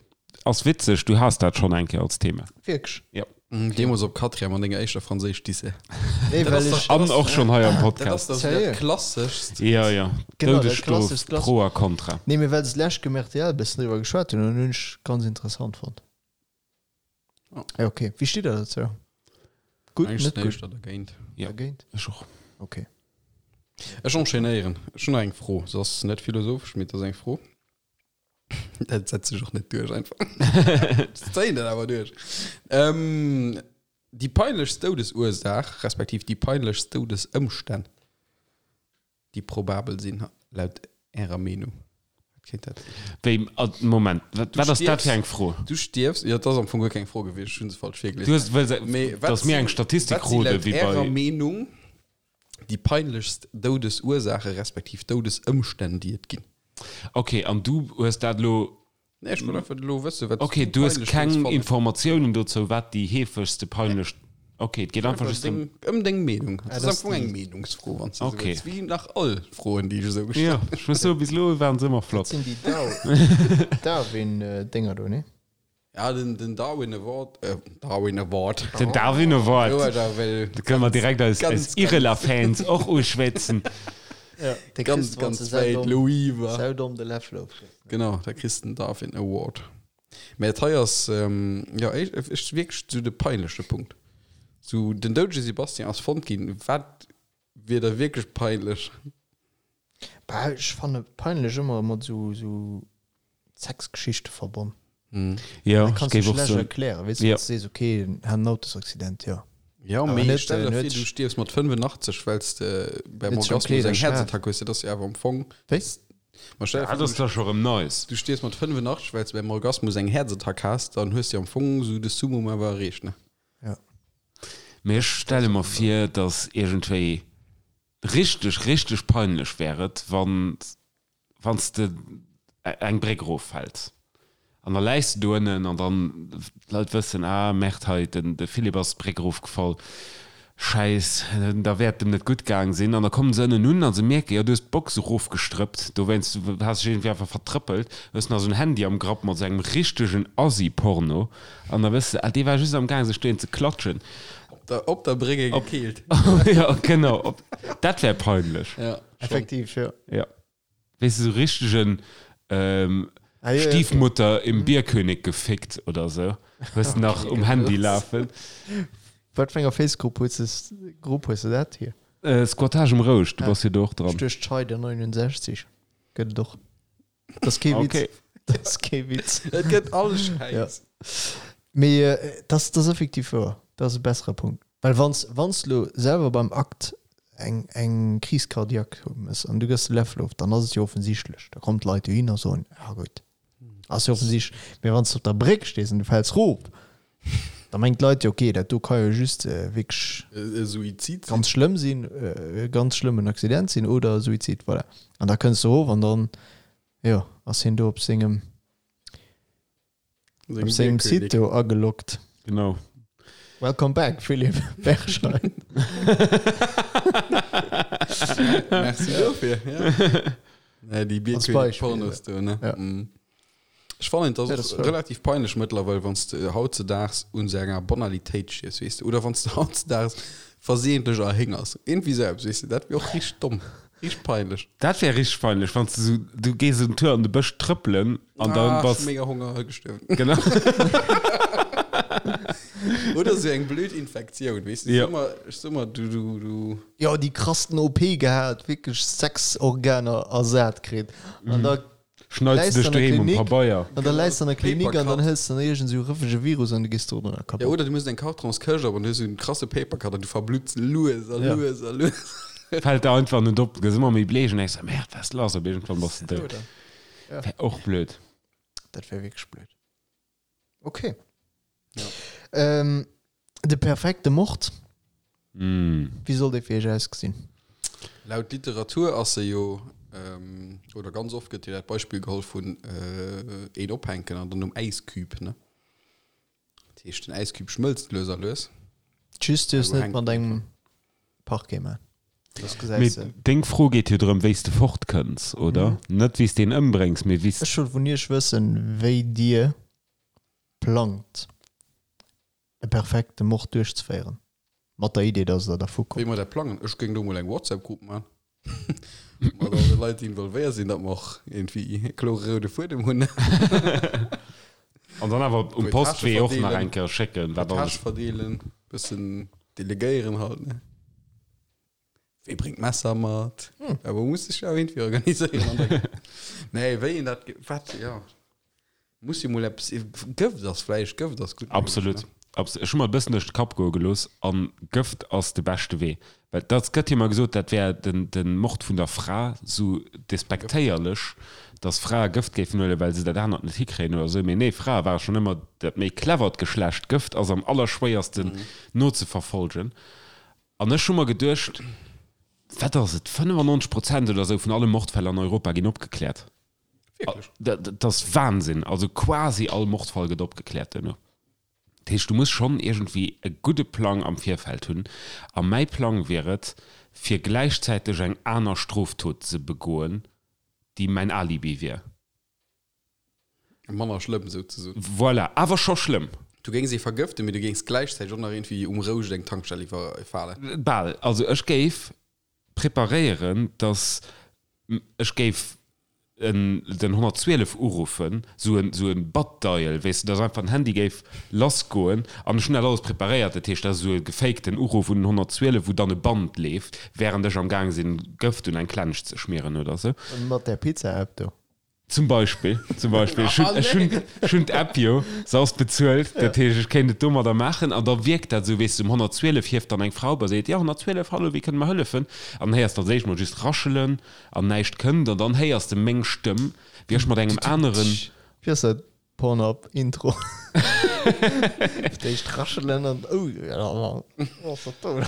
Ass witzeg, du has dat schonn eng Kéier als Thema. Wierklech? Jo. Deemools op Quatrième an denger éischter Franséisch-Disse. Nee, Dat well ass ech. dach- An och schonn hei am Dat ass Podcast. dach Sérieux? dat Klasseschst. Jo, jo. Genau, dat Doudesstrof, klasseschst Klass- Pro a Contra. Nee, mee well se d'lescht Kéier um rtl e bëssen driwwer geschwat hunn, an hunn ech ganz interessant fonnt. Oh. Ja, okay. Wéi steet der dozou? Gutt, Eigentlich net sinn gutt? éischter dergéint. Ja. Dergéint? Ech och. Okay. Ech enchaînéieren. Ech hunn nach eng Fro. Se ass net philosophesch, mee et ass eng Fro. Dat setzt sech och net duerch einfach. Ech zéien dat awer duerch. Ähm, déi peinlechst Doudesursaach, respektiv déi peinlechst Doudesëmstänn, déi probabel sinn, laut Ärer Meenung? Wat kéint dat sinn? Wéi, Moment, wat, wat ass dat fir eng Fro? Du stierfs, jo, et ass am Fong guer keng Fro gewiescht, ech hunn se falsch Du virgelies. hues wëlls, Mee wat dass mir sinn, eng Statistik wat si krute laut wéi Ärer bei. Meenung déi peinlechst Doudesursaache respektiv Doudesëmstänn, déi et ginn? Okay, an du hues dat elo Nee, ech wollt einfach elo wëssen, wat Okay, du du hues peinlech keng géings fannen. Informatiounen dozou, wat déi heefegste peinlech. Okay, et geet einfach Einfach just ëm. deng, ëm deng Meenung. Dat dat ass am ass Fong eng déi- Meenungsfro, wann s de esou Okay. wëlls. Wéi nach all Froen, déi ech esou gestallt Ja, ech muss soen, bis elo waren se ëmmer Dat flott. sinn déi Dar Darwin-Dénger do, nee? Ja, den, den Darwin Award, äh, Darwin Award. Den Darwin Award. Jo, da well Da kënne mer direkt eis, Ganz, eis Irela-Fans och uschwätzen. Ja, de ganz, kriss, wann ganz se wäit saudomm, Louis war. saudomm de Läffel ofkriss. Genau, da kriss den Darwin Award. Mä et hei ass, ähm, ja, ech, ech wierklech sou de peinleche Punkt. Sou, den doudege Sebastian ass fonnt ginn. Wat wier da wierklech peinlech? Bah, ech fanne peinlech ëmmer mat sou, sou Sexgeschichte verbonn. Jo, Dat ech kanns du géif och schlecht soen. erklären, weess du, Jo. wann s du sees, okay, en hat en Autosaccident, jo. Jo, Awer mee net, stell der en vir, huet du stierfs mat 85, well s de beim Huet sech am Orgasmus Kleeder eng geschaf. Häerzattack hues. Dat ass jo awer am Fong. Wéi? Ma stell der Dat vir, ass du da scho rëm nice. du stierfs mat 85, well s de beim Orgasmus eng Häerzattack has, dann hues de am Fong sou de Summum awer erreecht, ne? Ja. Mee ech stelle mer vir, dass iergendwéi richteg, richteg peinlech wär et, wann wann s de eng Bréck eroffäls an da läis de do ënnen an dann d'Leit wëssen, ah Merde, hei den de Philippe ass d'Bréck erofgefall, Schäiss, da wäert dem net gutt gaang sinn. An da kommen se ënnen un a se mierken, jo du hues d'Box erofgestrëppt, dowéinst has dech iergendwéi einfach vertrëppelt, hues nach esou en Handy am Grapp mat esou engem richtegen Assi-Porno an da wëss de, ah dee war just am gaang sech dohin ze klatschen. Op der, op der Bréck e gekeelt. Jo, genau, op, dat wär peinlech. Ja, schon. Effektiv, jo. Ja. Weess de, sou richtegen ähm, Ah, ja, ja, okay. Stiefmutter im Bierkönig gefickt oder sou. Hues de nach um Handy lafen. Wat fir enger Facegrupp hues de, Grupp hues de dat hier? Äh, Squattage um Rouscht, du Ah. bass jo do och dran. Ech duecht Scheider 69 gëtt et och. Dat ass kee Witz. Okay. Dat ass kee Witz. Et gëtt all Schäiss. Ja. Mee äh, dat ass effektiv wouer. Dat ass e bessere Punkt. Well wann s wann s lo selwer beim Akt eng eng Crise cardiaque hues an du gëss de Läffel of, dann ass et jo offensichtlech. Da kommen d'Leit dohin a soen, ja gutt, ass jo offensichtlech. Mee wann s de op der Bréck stees an du fäls rof, da mengen d'Leit jo, okay, dat do ka jo just wierklech E Suizid sinn. ganz schlëmm sinn, e ganz schlëmmen Accident sinn oder e Suizid, voilà. An da kënns de rof an dann, jo, ass hien do op sengem Op sengem Site do ageloggt. Genau. Welcome back, Philipp Berscheid. Merci dofir. Ja. Nee, déi Als Beispiel, Bierkönig-Pornos do, ne? Ja. Mm. Ech fannen, dat Ja, ass das war- relativ peinlech mëttlerweil, wann s de hautzedaags un sou enger Banalitéit stierfs, weess de, oder wann s de hautzedaags versehentlech erhéngers. Irgendwie sou eppes, weess de, dat wier och richteg domm. Richteg peinlech. Dat wär richteg peinlech, wann s de sou, du gees en Tour an de Bësch trëppelen an dann Ah, bass. mega Honger, gestuerwen. Genau. Oder sou eng blöd Infektioun, weess de, Ja. ech so mer, ech so mer, du, du, du. Jo, déi krassten OP gehat, wierklech 6 Organer ersat kritt. An da Schneits du läis dech an der doheem um Klinik, Pabeier. an da läis an der Klinik an dann Papercut. hëls de iergend sou rëffege Virus an du gees do drënner Ja, kapott. oder du muss eng Kartonskëscht op an du hues sou en krasse Papercut an du verblutts lues a Ja. lues a lues. Fällt der einfach net op, du gëss ëmmer méi bleech an denks, Merde, wat ass lass? Op iergendwann bass de dout. Ja. Wär och blöd. Dat wär wierklech blöd. Okay. Ähm, de perfekte Mord, Mm. wéi soll dee fir iech ausgesinn? Laut Literatur ass se jo, ähm, oder ganz oft gëtt jo dat Beispill geholl vun äh, een ophänken an dann um Äisküb, ne? Dat heescht, den Äisküb schmëlzt lues a lues. Just duerfs Also net hänkt mat engem Parquet man. Das Mee gesäis de. deng Fro geet jo drëm, wéi s de fortkënns, oder? Net wéi s de en ëmbréngs, mee wéi s. Ech wollt vun iech wëssen, wéi dir plangt, e perfekte Mord duerchzeféieren. Mat der Idee, dass der dervu Wéi kommt. mer dat plangen? Ech géing do mol eng WhatsApp-Grupp man. Mat all de Leit, déi involvéiert sinn, datt mer och iergendwéi e klore roude Fuedem hunn. An dann awer um Puer Postwee Täsche och nach verdeelen. eng Kéier schécken, wat alles. Tâche verdeelen, bëssen delegéieren halt, ne? Wee bréngt d'Messer mat? Awer muss sech jo iergendwéi organiséieren an der Nee, wéi een dat, wat, jo. Muss jo mol eppes, Gëft ass vläicht, Gëft ass gutt méiglech, Absolut. ne? Abs ech hu mer e bëssen duerch de Kapp goe gelooss an Gëft ass de beschte Wee. Well dat gëtt jo ëmmer gesot, dat wär den, den Mord vun der Fra sou despektéierlech, dass Frae Gëft géifen huelen, well se dat anert net hikréien oder sou. Mee nee, Frae ware schonn ëmmer dat méi clevert Geschlecht. Gëft ass am allerschwéiersten nozeverfolgen. An ech hu mer geduecht, wat ass et, 95 Prozent oder sou vun alle Mordfäll an Europa ginn opgekläert. Wierklech? Dat, dat ass Wahnsinn. Also quasi all Mordfall gëtt opgekläert duerno. Dat heescht, du muss schonn iergendwéi e gudde Plang am Virfeld hunn. A mäi Plang wier et, fir gläichzäiteg eng aner Stroftot ze begoen, déi mäin Alibi wier. Manner schlëmm souzesoen. Voilà, awer scho schlëmm. Du géings ee vergëften, mee du géings gläichzäiteg och nach iergendwéi um Rouscht eng Tankstell iwwerfalen. Bal. Also ech géif preparéieren, dass ech géif en den 112 uruffen, sou en sou en Butt-Dial, weess de, dass einfach den Handy géif lassgoen an ech hunn dat alles preparéiert, dat heescht, dat ass esou e gefakten Uruff un den 112, wou dann e Band leeft, während ech am gaang sinn, Gëft un eng Klensch ze schmieren oder sou. Mat där Pizza-App do. Zum Beispill, zum Beispill. Ech hunn, ech hunn, ech hunn d'App jo, se ass bezuelt, dat heescht, ech kéint et domadder maachen an da wierkt dat esou, weess de, um 112 hieft dann eng Frau op a seet, jo, 112, hallo, wéi kënne mer hëllefen? An dann héiers de als éischt mol just raschelen an näischt kënnt an dann héiers de meng Stëmm, wéi ech mat engem aneren. Wéi ass dat? Pornhub Intro. Fir d'éischt raschelen an oh wat ass dat do?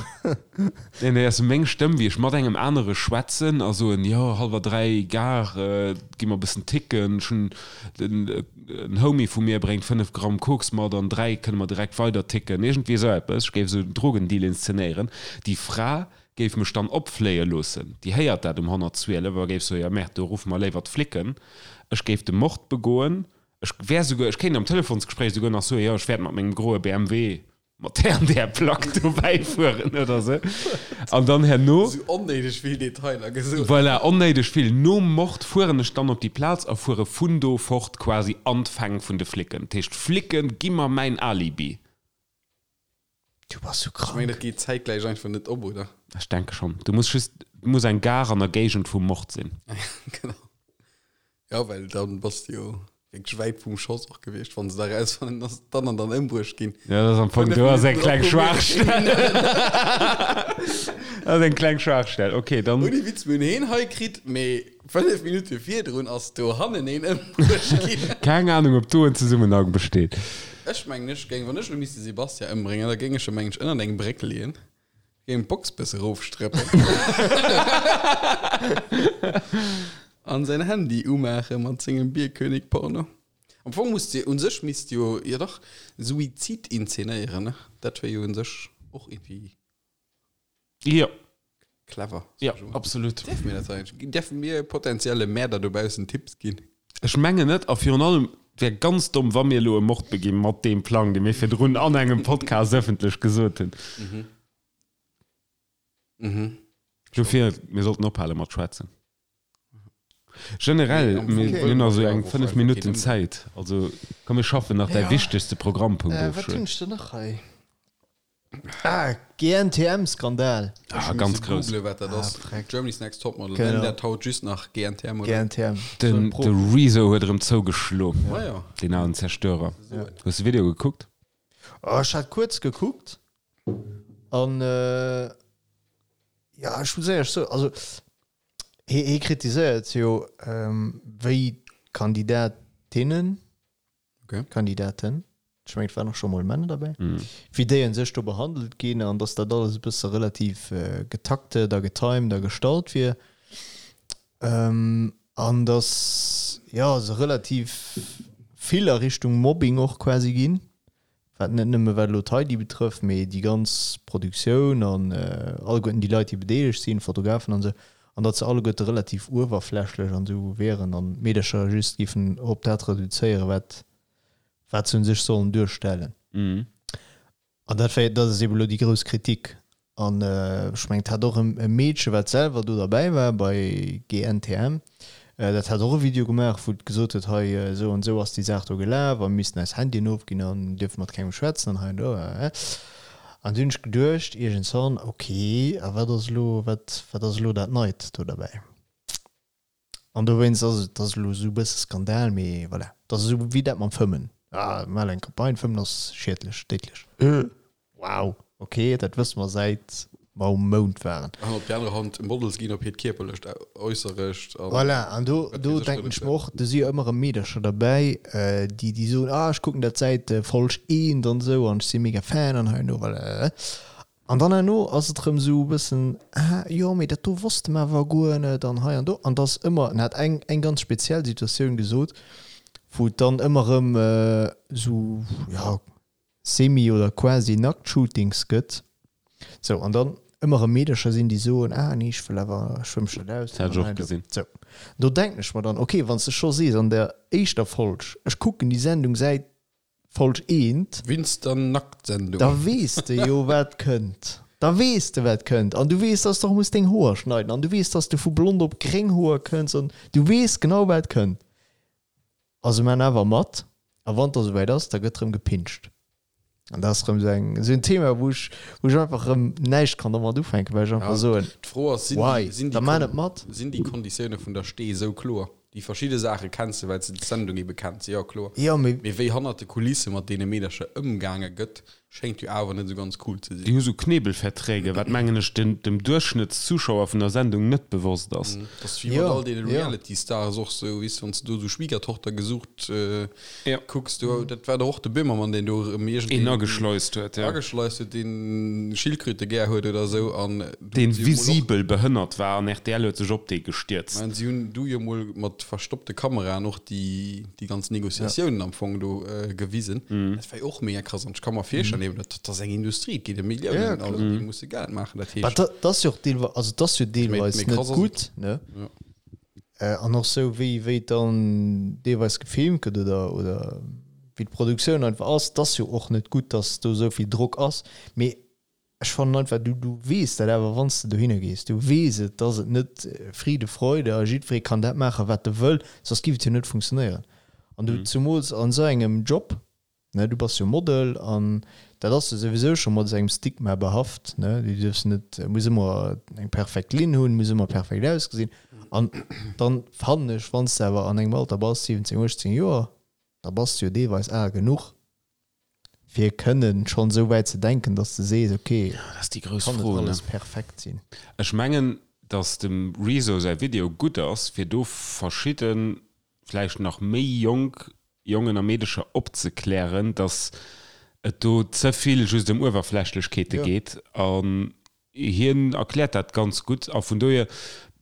Nee, nee, ass meng Stëmm, wéi ech mat engem anere schwätzen a soen, jo, hallwer 3, Gare, gi mer e bëssen ticken, ech hunn den, en Homie vu mir bréngt 5 Gramm Koks mat, an 3 kënne mer direkt weider ticken, iergendwéi esou eppes. Ech géif esou en Drogendeal inszenéieren. Déi Fra géif mech dann opfléie loossen, déi héiert dat um 112 a géif soen, jo, merde, do ruffe mer léiwer d'Flicken. Ech géif de Mord begoen. Ech wär souguer, ech kéint am Telefonsgespréich souguer nach soen, jo, ech wäert mat mengem groe BMW mat där an där Plack dobäi fueren oder sou. An dann herno. Sou onnéideg vill Detailer gesot. Voilà, onnéideg vill. Nom Mord fueren ech dann op déi Plaz a fuere vun do fort quasi an d'Fäng vun de Flicken. Dat heescht, d'Flicke gi mer mäin Alibi. Du bass sou Ech mengen, dat krank. geet zäitgläich einfach net op, oder? Ech denke schonn. Du muss just, et muss eng Gare an der Géigend vum Mord sinn. Genau. Ja, well dann bass de jo wierklech wäit vum Schoss och gewiescht, wann se da erausfannen, dass dann an dann ëmbruecht ginn. Ja, dat ass am Fong, do ass eng kleng Schwaachstell. Dat ass eng kleng Schwaachstell. Okay, dann. Ouni Witz, mir hunn heen hei kritt, mee 5 Minutte virdrun ass dohannen een ëmbruecht ginn. Keng Ahnung, ob do en Zesummenhang besteet. Ech mengen, ech géing, wann ech elo misst de Sebastian ëmbréngen, da géing ech e mengen ech ënnert eng Bréck leeën, géing d'Box bësse rofstréppen an säin Handy umaache mat sengem Bierkönig-Porno. Am Fong muss de, un sech misst jo, jo dach, Suizid inzenéieren, ne? Dat wier jo un sech och irgendwie. Jo. Clever. Jo, absolut. Däerfe mir dat eigentlech? Däerfe mir potenzielle Mäerder dobaussen Tipps ginn? Ech mengen net. A virun allem, et wär ganz domm, wa mir elo e Mord beginn mat deem Plang, dee mir virdrun an engem Podcast ëffentlech gesot hunn. Dofir, mir sollten ophale mat schwätzen. Generell, mir hunn nach esou eng 5 Minutten Zäit. Also komm, mir schaffen nach däi wichtegste Programmpunkt of. Wat hunn ech denn nach hei? Ah, GNTM-Skandal. Ah, ganz grouss. Googlen, wat dat ass. Germany's Next Topmodel. Genau. Nennen dat haut just nach GNTM, oder? GNTM. Den, de Rezo huet erëm zougeschlo. Ah ja. Deen alen Zerstörer. Hues de Video gekuckt? Oh, ech hat kuerz gekuckt. An, ja, ech muss éierlech soen, also, hie, hie kritiséiert jo, wéi d'Kandidatinnen, Okay. Kandidaten, ech mengen et waren och scho mol Männer derbäi, wéi déi un sech do behandelt ginn an datt dat alles e bësse relativ getaktet a getimed a gestallt wier an datt, jo, se relativ vill a Richtung Mobbing och quasi ginn, wat net nëmme wat elo d'Heidi betrëfft, mee déi ganz Produktioun an alleguerten déi Leit, déi bedeelegt sinn, Fotografen an esou, an datt se alleguerte relativ uewerflächlech an esou wieren an d'Meedercher just géifen op dat reduzéieren, wat wat se un sech sollen duerstellen. An dat wär, dat ass eeben elo déi grouss Kritik. An ech mengen, et hat och e Meedche, wat selwer do derbäi war bei GNTM, dat hat och e Video gemaach, wou et gesot huet, hei esou an esou ass déi Saach do gelaf a mir missten eis Handyen ofginn an dierfe mat kengem schwätzen an hei an do. An du hunn ech geduecht iergendwann, ok, a wat ass elo, wat, wat ass elo dat Neit do derbäi? An dowéinst ass et ass elo esou e bësse Skandal, mee voilà. Et ass esou wéi dat mam Fëmmen. Ah, mir maachen eng Campagne, Fëmmen ass schiedlech, déidlech. Wow, ok, dat wësse mer säit mer um Mound waren. An op déi aner Hand, Models ginn op hiert kierperlecht Äusserecht an. Voilà, an do, do denken ech mer och, do si jo ëmmer erëm Meedercher derbäi, déi, déi soen, ah, ech kucken dat säit Folg eent an esou an ech si mega Fan an hei an do, voilà. An dann herno ass et erëm esou e bëssen, ah jo, mee dat do wosste mer awer guer net an hei an do. An et ass ëmmer, en hat eng, eng ganz speziell Situatioun gesot, wou et dann ëmmer erëm esou, ja, semi oder quasi Nackt-Shootings gëtt. Sou, an dann ëmmer erëm Meedercher sinn, déi soen, ah nee, ech wëll awer, ech wëll mech net Dat hat ech och gesinn. Sou. Do denken ech mer dann, okay, wann s de scho sees an der éischter Folg, ech kucken déi Sendung säit Folg eent. Winst der Nacktsendung. Da weess de jo wat kënnt. Da weess de wat kënnt. An du weess, dass de och muss deng Hoer schneiden. An du weess, dass de vu blond op gréng Hoer kënns. An du weess genau wat kënnt. A se man awer mat. A wann et da souwäit ass, da gëtt rëm gepinscht. An dat ass rëm esou eng, esou en Thema, wou ech, wou ech einfach rëm näischt kann domat ufänken, well ech einfach soen, D'Fro ass, sinn why? déi, sinn déi Da man et mat. Sinn déi Konditioune vun der Stee esou kloer? Déi verschidde Saache kenns de, well s de d'Sendung ebe kenns, jo kloer. Jo, mee. Mee wéi hannert de Kulisse mat deene Meedercher ëmgaange gëtt, schéngt jo awer net esou ganz cool ze Déi sinn. hu sou Knebelverträge, wat mengen ech den dem Duerchschnëttszuschauer vun der Sendung net bewosst ass. Dat ass wéi mat Jo, all deene jo. Reality-Stars och sou, weess de, wann s de do esou Schwiegertochter gesucht Ja. kucks, do, dat war doch och de Böhmermann, deen do erëm Een iergendeen ageschleust huet, ja. ageschleist huet, deen Schildkröte gär huet oder esou an do Deen hunn si jo mol och, visibel behënnert war an rtl huet sech op dee gestierzt. mä si hunn du jo mol mat verstoppte Kameraen och déi, déi ganz Négociatiounen am Fong do gewisen. Dat war jo och mega krass an ech ka mer virstellen, eben, dat ass eng Industrie, et geet ëm Milliounen, also déi musse Geld maachen, dat Mä heescht, dat ass jo och deelweis, also dat ass jo méi, deelweis méi net krass ass et. gutt, ne? Ja. An och sou wéi wéi et dann deelweis gefilmt gëtt oder oder wéi d'Produktioun einfach ass, et ass jo och net gutt, datt do esou vill Drock ass. Mee ech fannen einfach, du du weess dat awer wann s de dohinner gees, du weess et, datt et net Friede, Freude a jiddweree kann dat maachen, wat e wëll, soss giff et jo net funktionéieren. An du zumools an esou engem Job, Ne, du bass jo Model an dat ass jo souwisou scho mat esou engem Stigma behaft, ne, du dierfs net, muss ëmmer eng perfekt Linn hunn, muss ëmmer perfekt ausgesinn. An dann fannen ech, wann s de awer an engem Alter bass, 17, 18 Joer, da bass de jo deelweis al genuch, fir kënnen schonn esou wäit ze denken, dass de sees, okay, Dat ass déi grouss kann net Fro, ne? alles perfekt sinn. Ech mengen, datt dem Rezo säi Video gutt ass, fir do verschidde, vläicht nach méi jonk Jongen a Meedecher opzeklären, dass et do ze vill just ëm Uewerflächlechkeete geet. An hien erkläert dat ganz gutt. A vun dohier,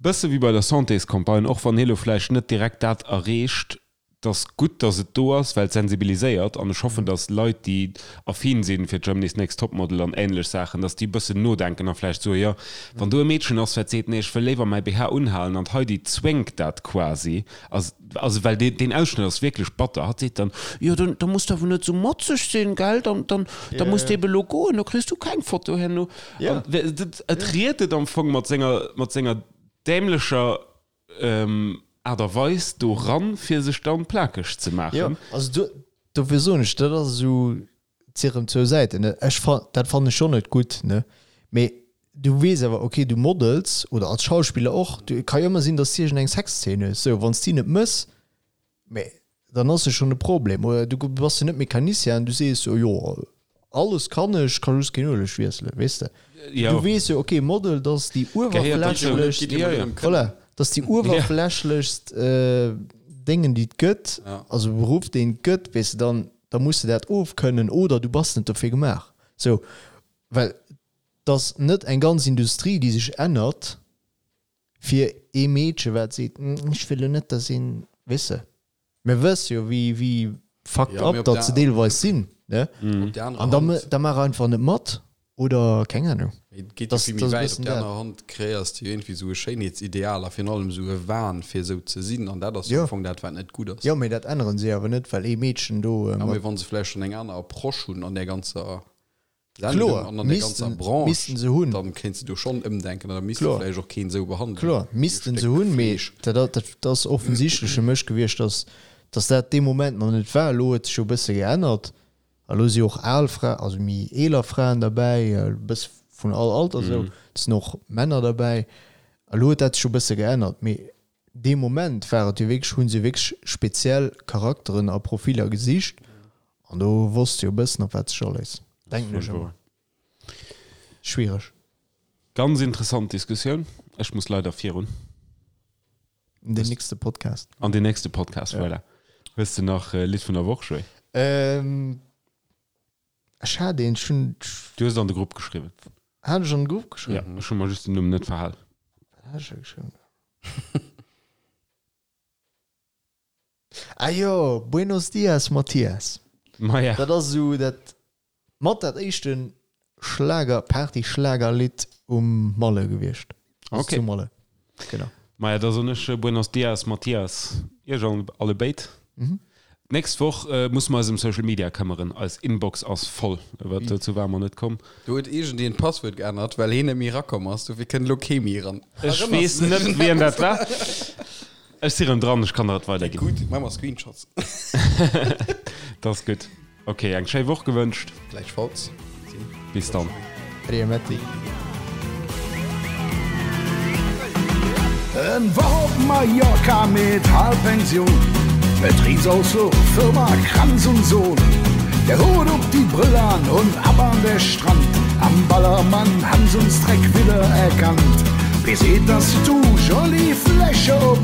bësse wéi bei der Santéscampagne, och wann hie lo vläicht net direkt dat erreecht, 't ass gutt, dass et do ass, well et sensibiliséiert. An ech hoffen, dass Leit, déi affin si fir Germany's Next Topmodel an änlech Saachen, dass déi e bëssen nodenken a vläicht soen, jo, wann do e Meedchen ass, wat seet, nee, ech wëll léiwer mäi BH unhalen an d'Heidi zwéngt dat quasi, Also well deen, deen Ausschnëtt ass wierklech batter. Hatt seet dann, jo dann, da muss de awer net esou motzeg sinn, gell, dann, dann, da muss de eben elo goen, da kriss du keng Foto herno. Ja. An dat, et riet et am Fong mat senger, mat senger dämlecher Aart a Weis do ran, fir sech dann plakeg ze Jo, maachen. also do, dofir soen ech, dat ass esou, et si rëm zwou Säiten, ne. Ech fa, dat fannen ech schonn net gutt, ne, mee du weess awer, okay, du models oder als Schauspiller och, du, et ka jo ëmmer sinn, dass du iergendeng Sexzeen hues, sou, wann s de déi net mëss, mee dann ass jo schonn e Problem. Oder du bass jo net Mecanicien an du sees jo, jo, alles kann ech, ka just keen Ueleg wiesselen, weess de. Jo. Du weess jo, okay, Model, dat ass déi Gehéiert dozou. uewerflächlechst, Ja, ja. voilà, dat ass déi uewerflächlechst Déngen, déi et gëtt, also Beruff, deen et gëtt, weess de, dann, da muss de dat ofkënnen oder du bass net dofir gemaach, sou, well 't ass net eng ganz Industrie, déi sech ännert fir ee Meedche wat seet, ech wëll lo net, dass een, weess de, mir wësse jo wéi wéi fucked Ja, mee up op datt der se deelweis sinn, ne? Op der anerer An da Hand. da maach einfach net mat oder keng Ahnung. Mee et geet jo Das, vill méi das ass e wäit. Op bëssen der dat. anerer Hand kreéiers de jo iergendwéi esou e Schéinheetsideal a virun allem esou e Wahn, fir esou ze sinn. An dat ass jo Jo. am Fong dat, wat net gutt ass. Jo, mee dat änneren se awer net, well ee Meedchen do Ja, mat. mee wa se vläicht schonn eng aner Approche hunn an där ganzer Sendung Kloer, an an der ganzer missten, Branche, missten se hunn. dann kéints de do schonn ëmdenken an da misst de Kloer. vläicht och keen esou behandelen Kloer, wéi e missten se Stéck hunn, mee Fleesch. dat, dat, dat ass offensichtlech fir mech gewiescht, dass, dass dat dee Moment nach net war. Elo huet sech jo e bësse geännert. A lo si och al Fra, also méi eeler Fraen derbäi, e bësse vun all Alter esou. Et sinn och Männer derbäi. A lo huet dat sech jo e bësse geännert. Mee dee Moment war et jo wierklech, hu se wierklech speziell Charakteren a Profiller gesicht. An do wosst se jo e bëssen, op wat sech aléisst, denken ech ëmmer. Schwiereg. Ganz interessant Diskussioun. Ech muss leider virun. An den nächste Podcast. An den nächste Podcast, ja. Voilà. Hues de nach äh, Lidd vun der Woch, Joé? Ähm, ech hat een, ech hunn. Du hues et an de Grupp geschriwwen. Hat ech an de Grupp geschriwwen? Ja, ech hu mer just den Numm net verhal. Wat hat ech da geschriwwen? Ah jo, Buenos Dias Mathias. Maja. Dat ass esou dat mat dat éischte Schlager, Party-Schlagerlidd um Malle gewiescht. Also Okay. zu Malle. Genau. Maja, da soen ech Buenos Dias, Mathias, iech alle béid. D'nächst Woch musse mer eis ëm Social Media këmmeren, eis Inbox ass voll, awer dozou ware mer net komm. Do huet iergendeen d'Passwuert geännert, well heen net méi erakomm ass, dofir kënnt elo kee méi eran. Ech weess net, wien dat war. Ech si rëm dran, ech kann der et weiderginn. Gutt, maache mer Screenshots. Dat ass gutt. Ok, eng schéi Woch gewënscht. Gläichfalls. Bis dann. Ade Matti. En Woch op Mallorca mit Halbpension, Betriebsausflug, Firma Kranz und Sohn. Der Hut op die Brille an und ab an der Strand, am Ballermann han s'uns dreck widder erkannt. Wie seet das du, Jolie Fläche op,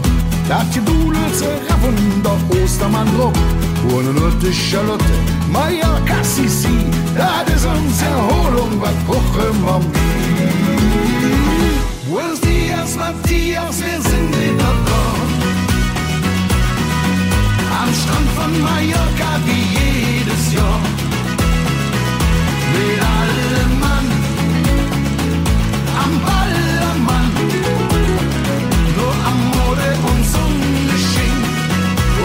dat Gedudels raffen der Ostermann drop. Und nun huet de Charlotte Mallorca Sissi, dat is ons Erholung, wat brauche mer méi? Buenos dias Matthias, wir sind wieder da Am Strand von Mallorca wie jedes Jahr Mit allem Mann am Ballermann Nur Amore und Sonne schien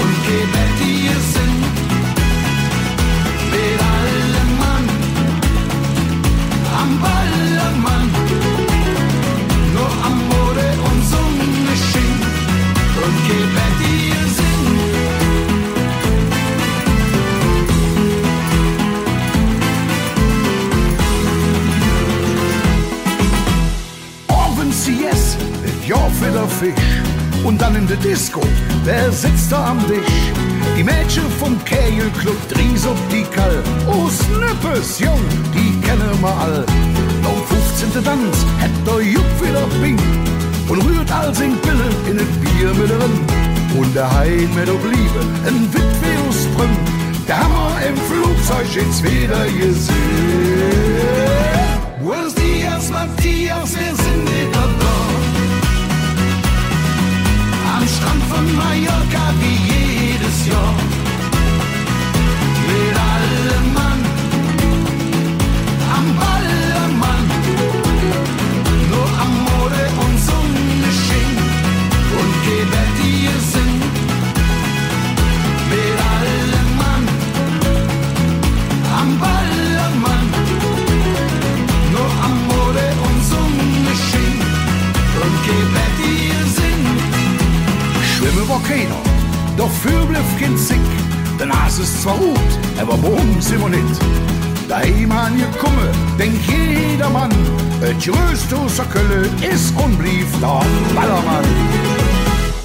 und gebettige Sinn Mit allem Mann am Ballermann Nur Amore und Sonne schien und gebettige Sinn. Owends CS, et Joer fir der Fisch Und dann in de Disco, wer sitzt da am Disch? Die Mädche vum Kägelclub, Dries op déi Kall Oh Snëppes, Jong, déi kenne mer all Nom fufzente Danz hätt der Jupp wieder Bing Und rührt all seng Pillen in et Bier mit erëm Und der Hein mit op Liebe en Witwe aus Prüm Der hammer im Flugzeug jetzt wieder gesinn. Buenos dias Matthias, wir sind wieder da Am Strand von Mallorca wie jedes Jahr Mit allem Mann am Ballermann Nur Amore und Sonne schien und gebettige Sinn Mit allem Mann am Ballermann Nur Amore und Sonne schien und gebettige Sinn. Schwimme wor keener, dofür bliff keen Zick, Den Aas is zwar rot, awer brong si mer nit. Daheem angekomme, denkt jedermann, Et grösst ausser Kölle is und blief der Ballermann.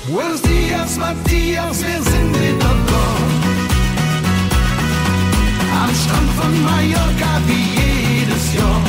Buenos dias Matthias, wir sind wieder da Am Strand von Mallorca wie jedes Jahr.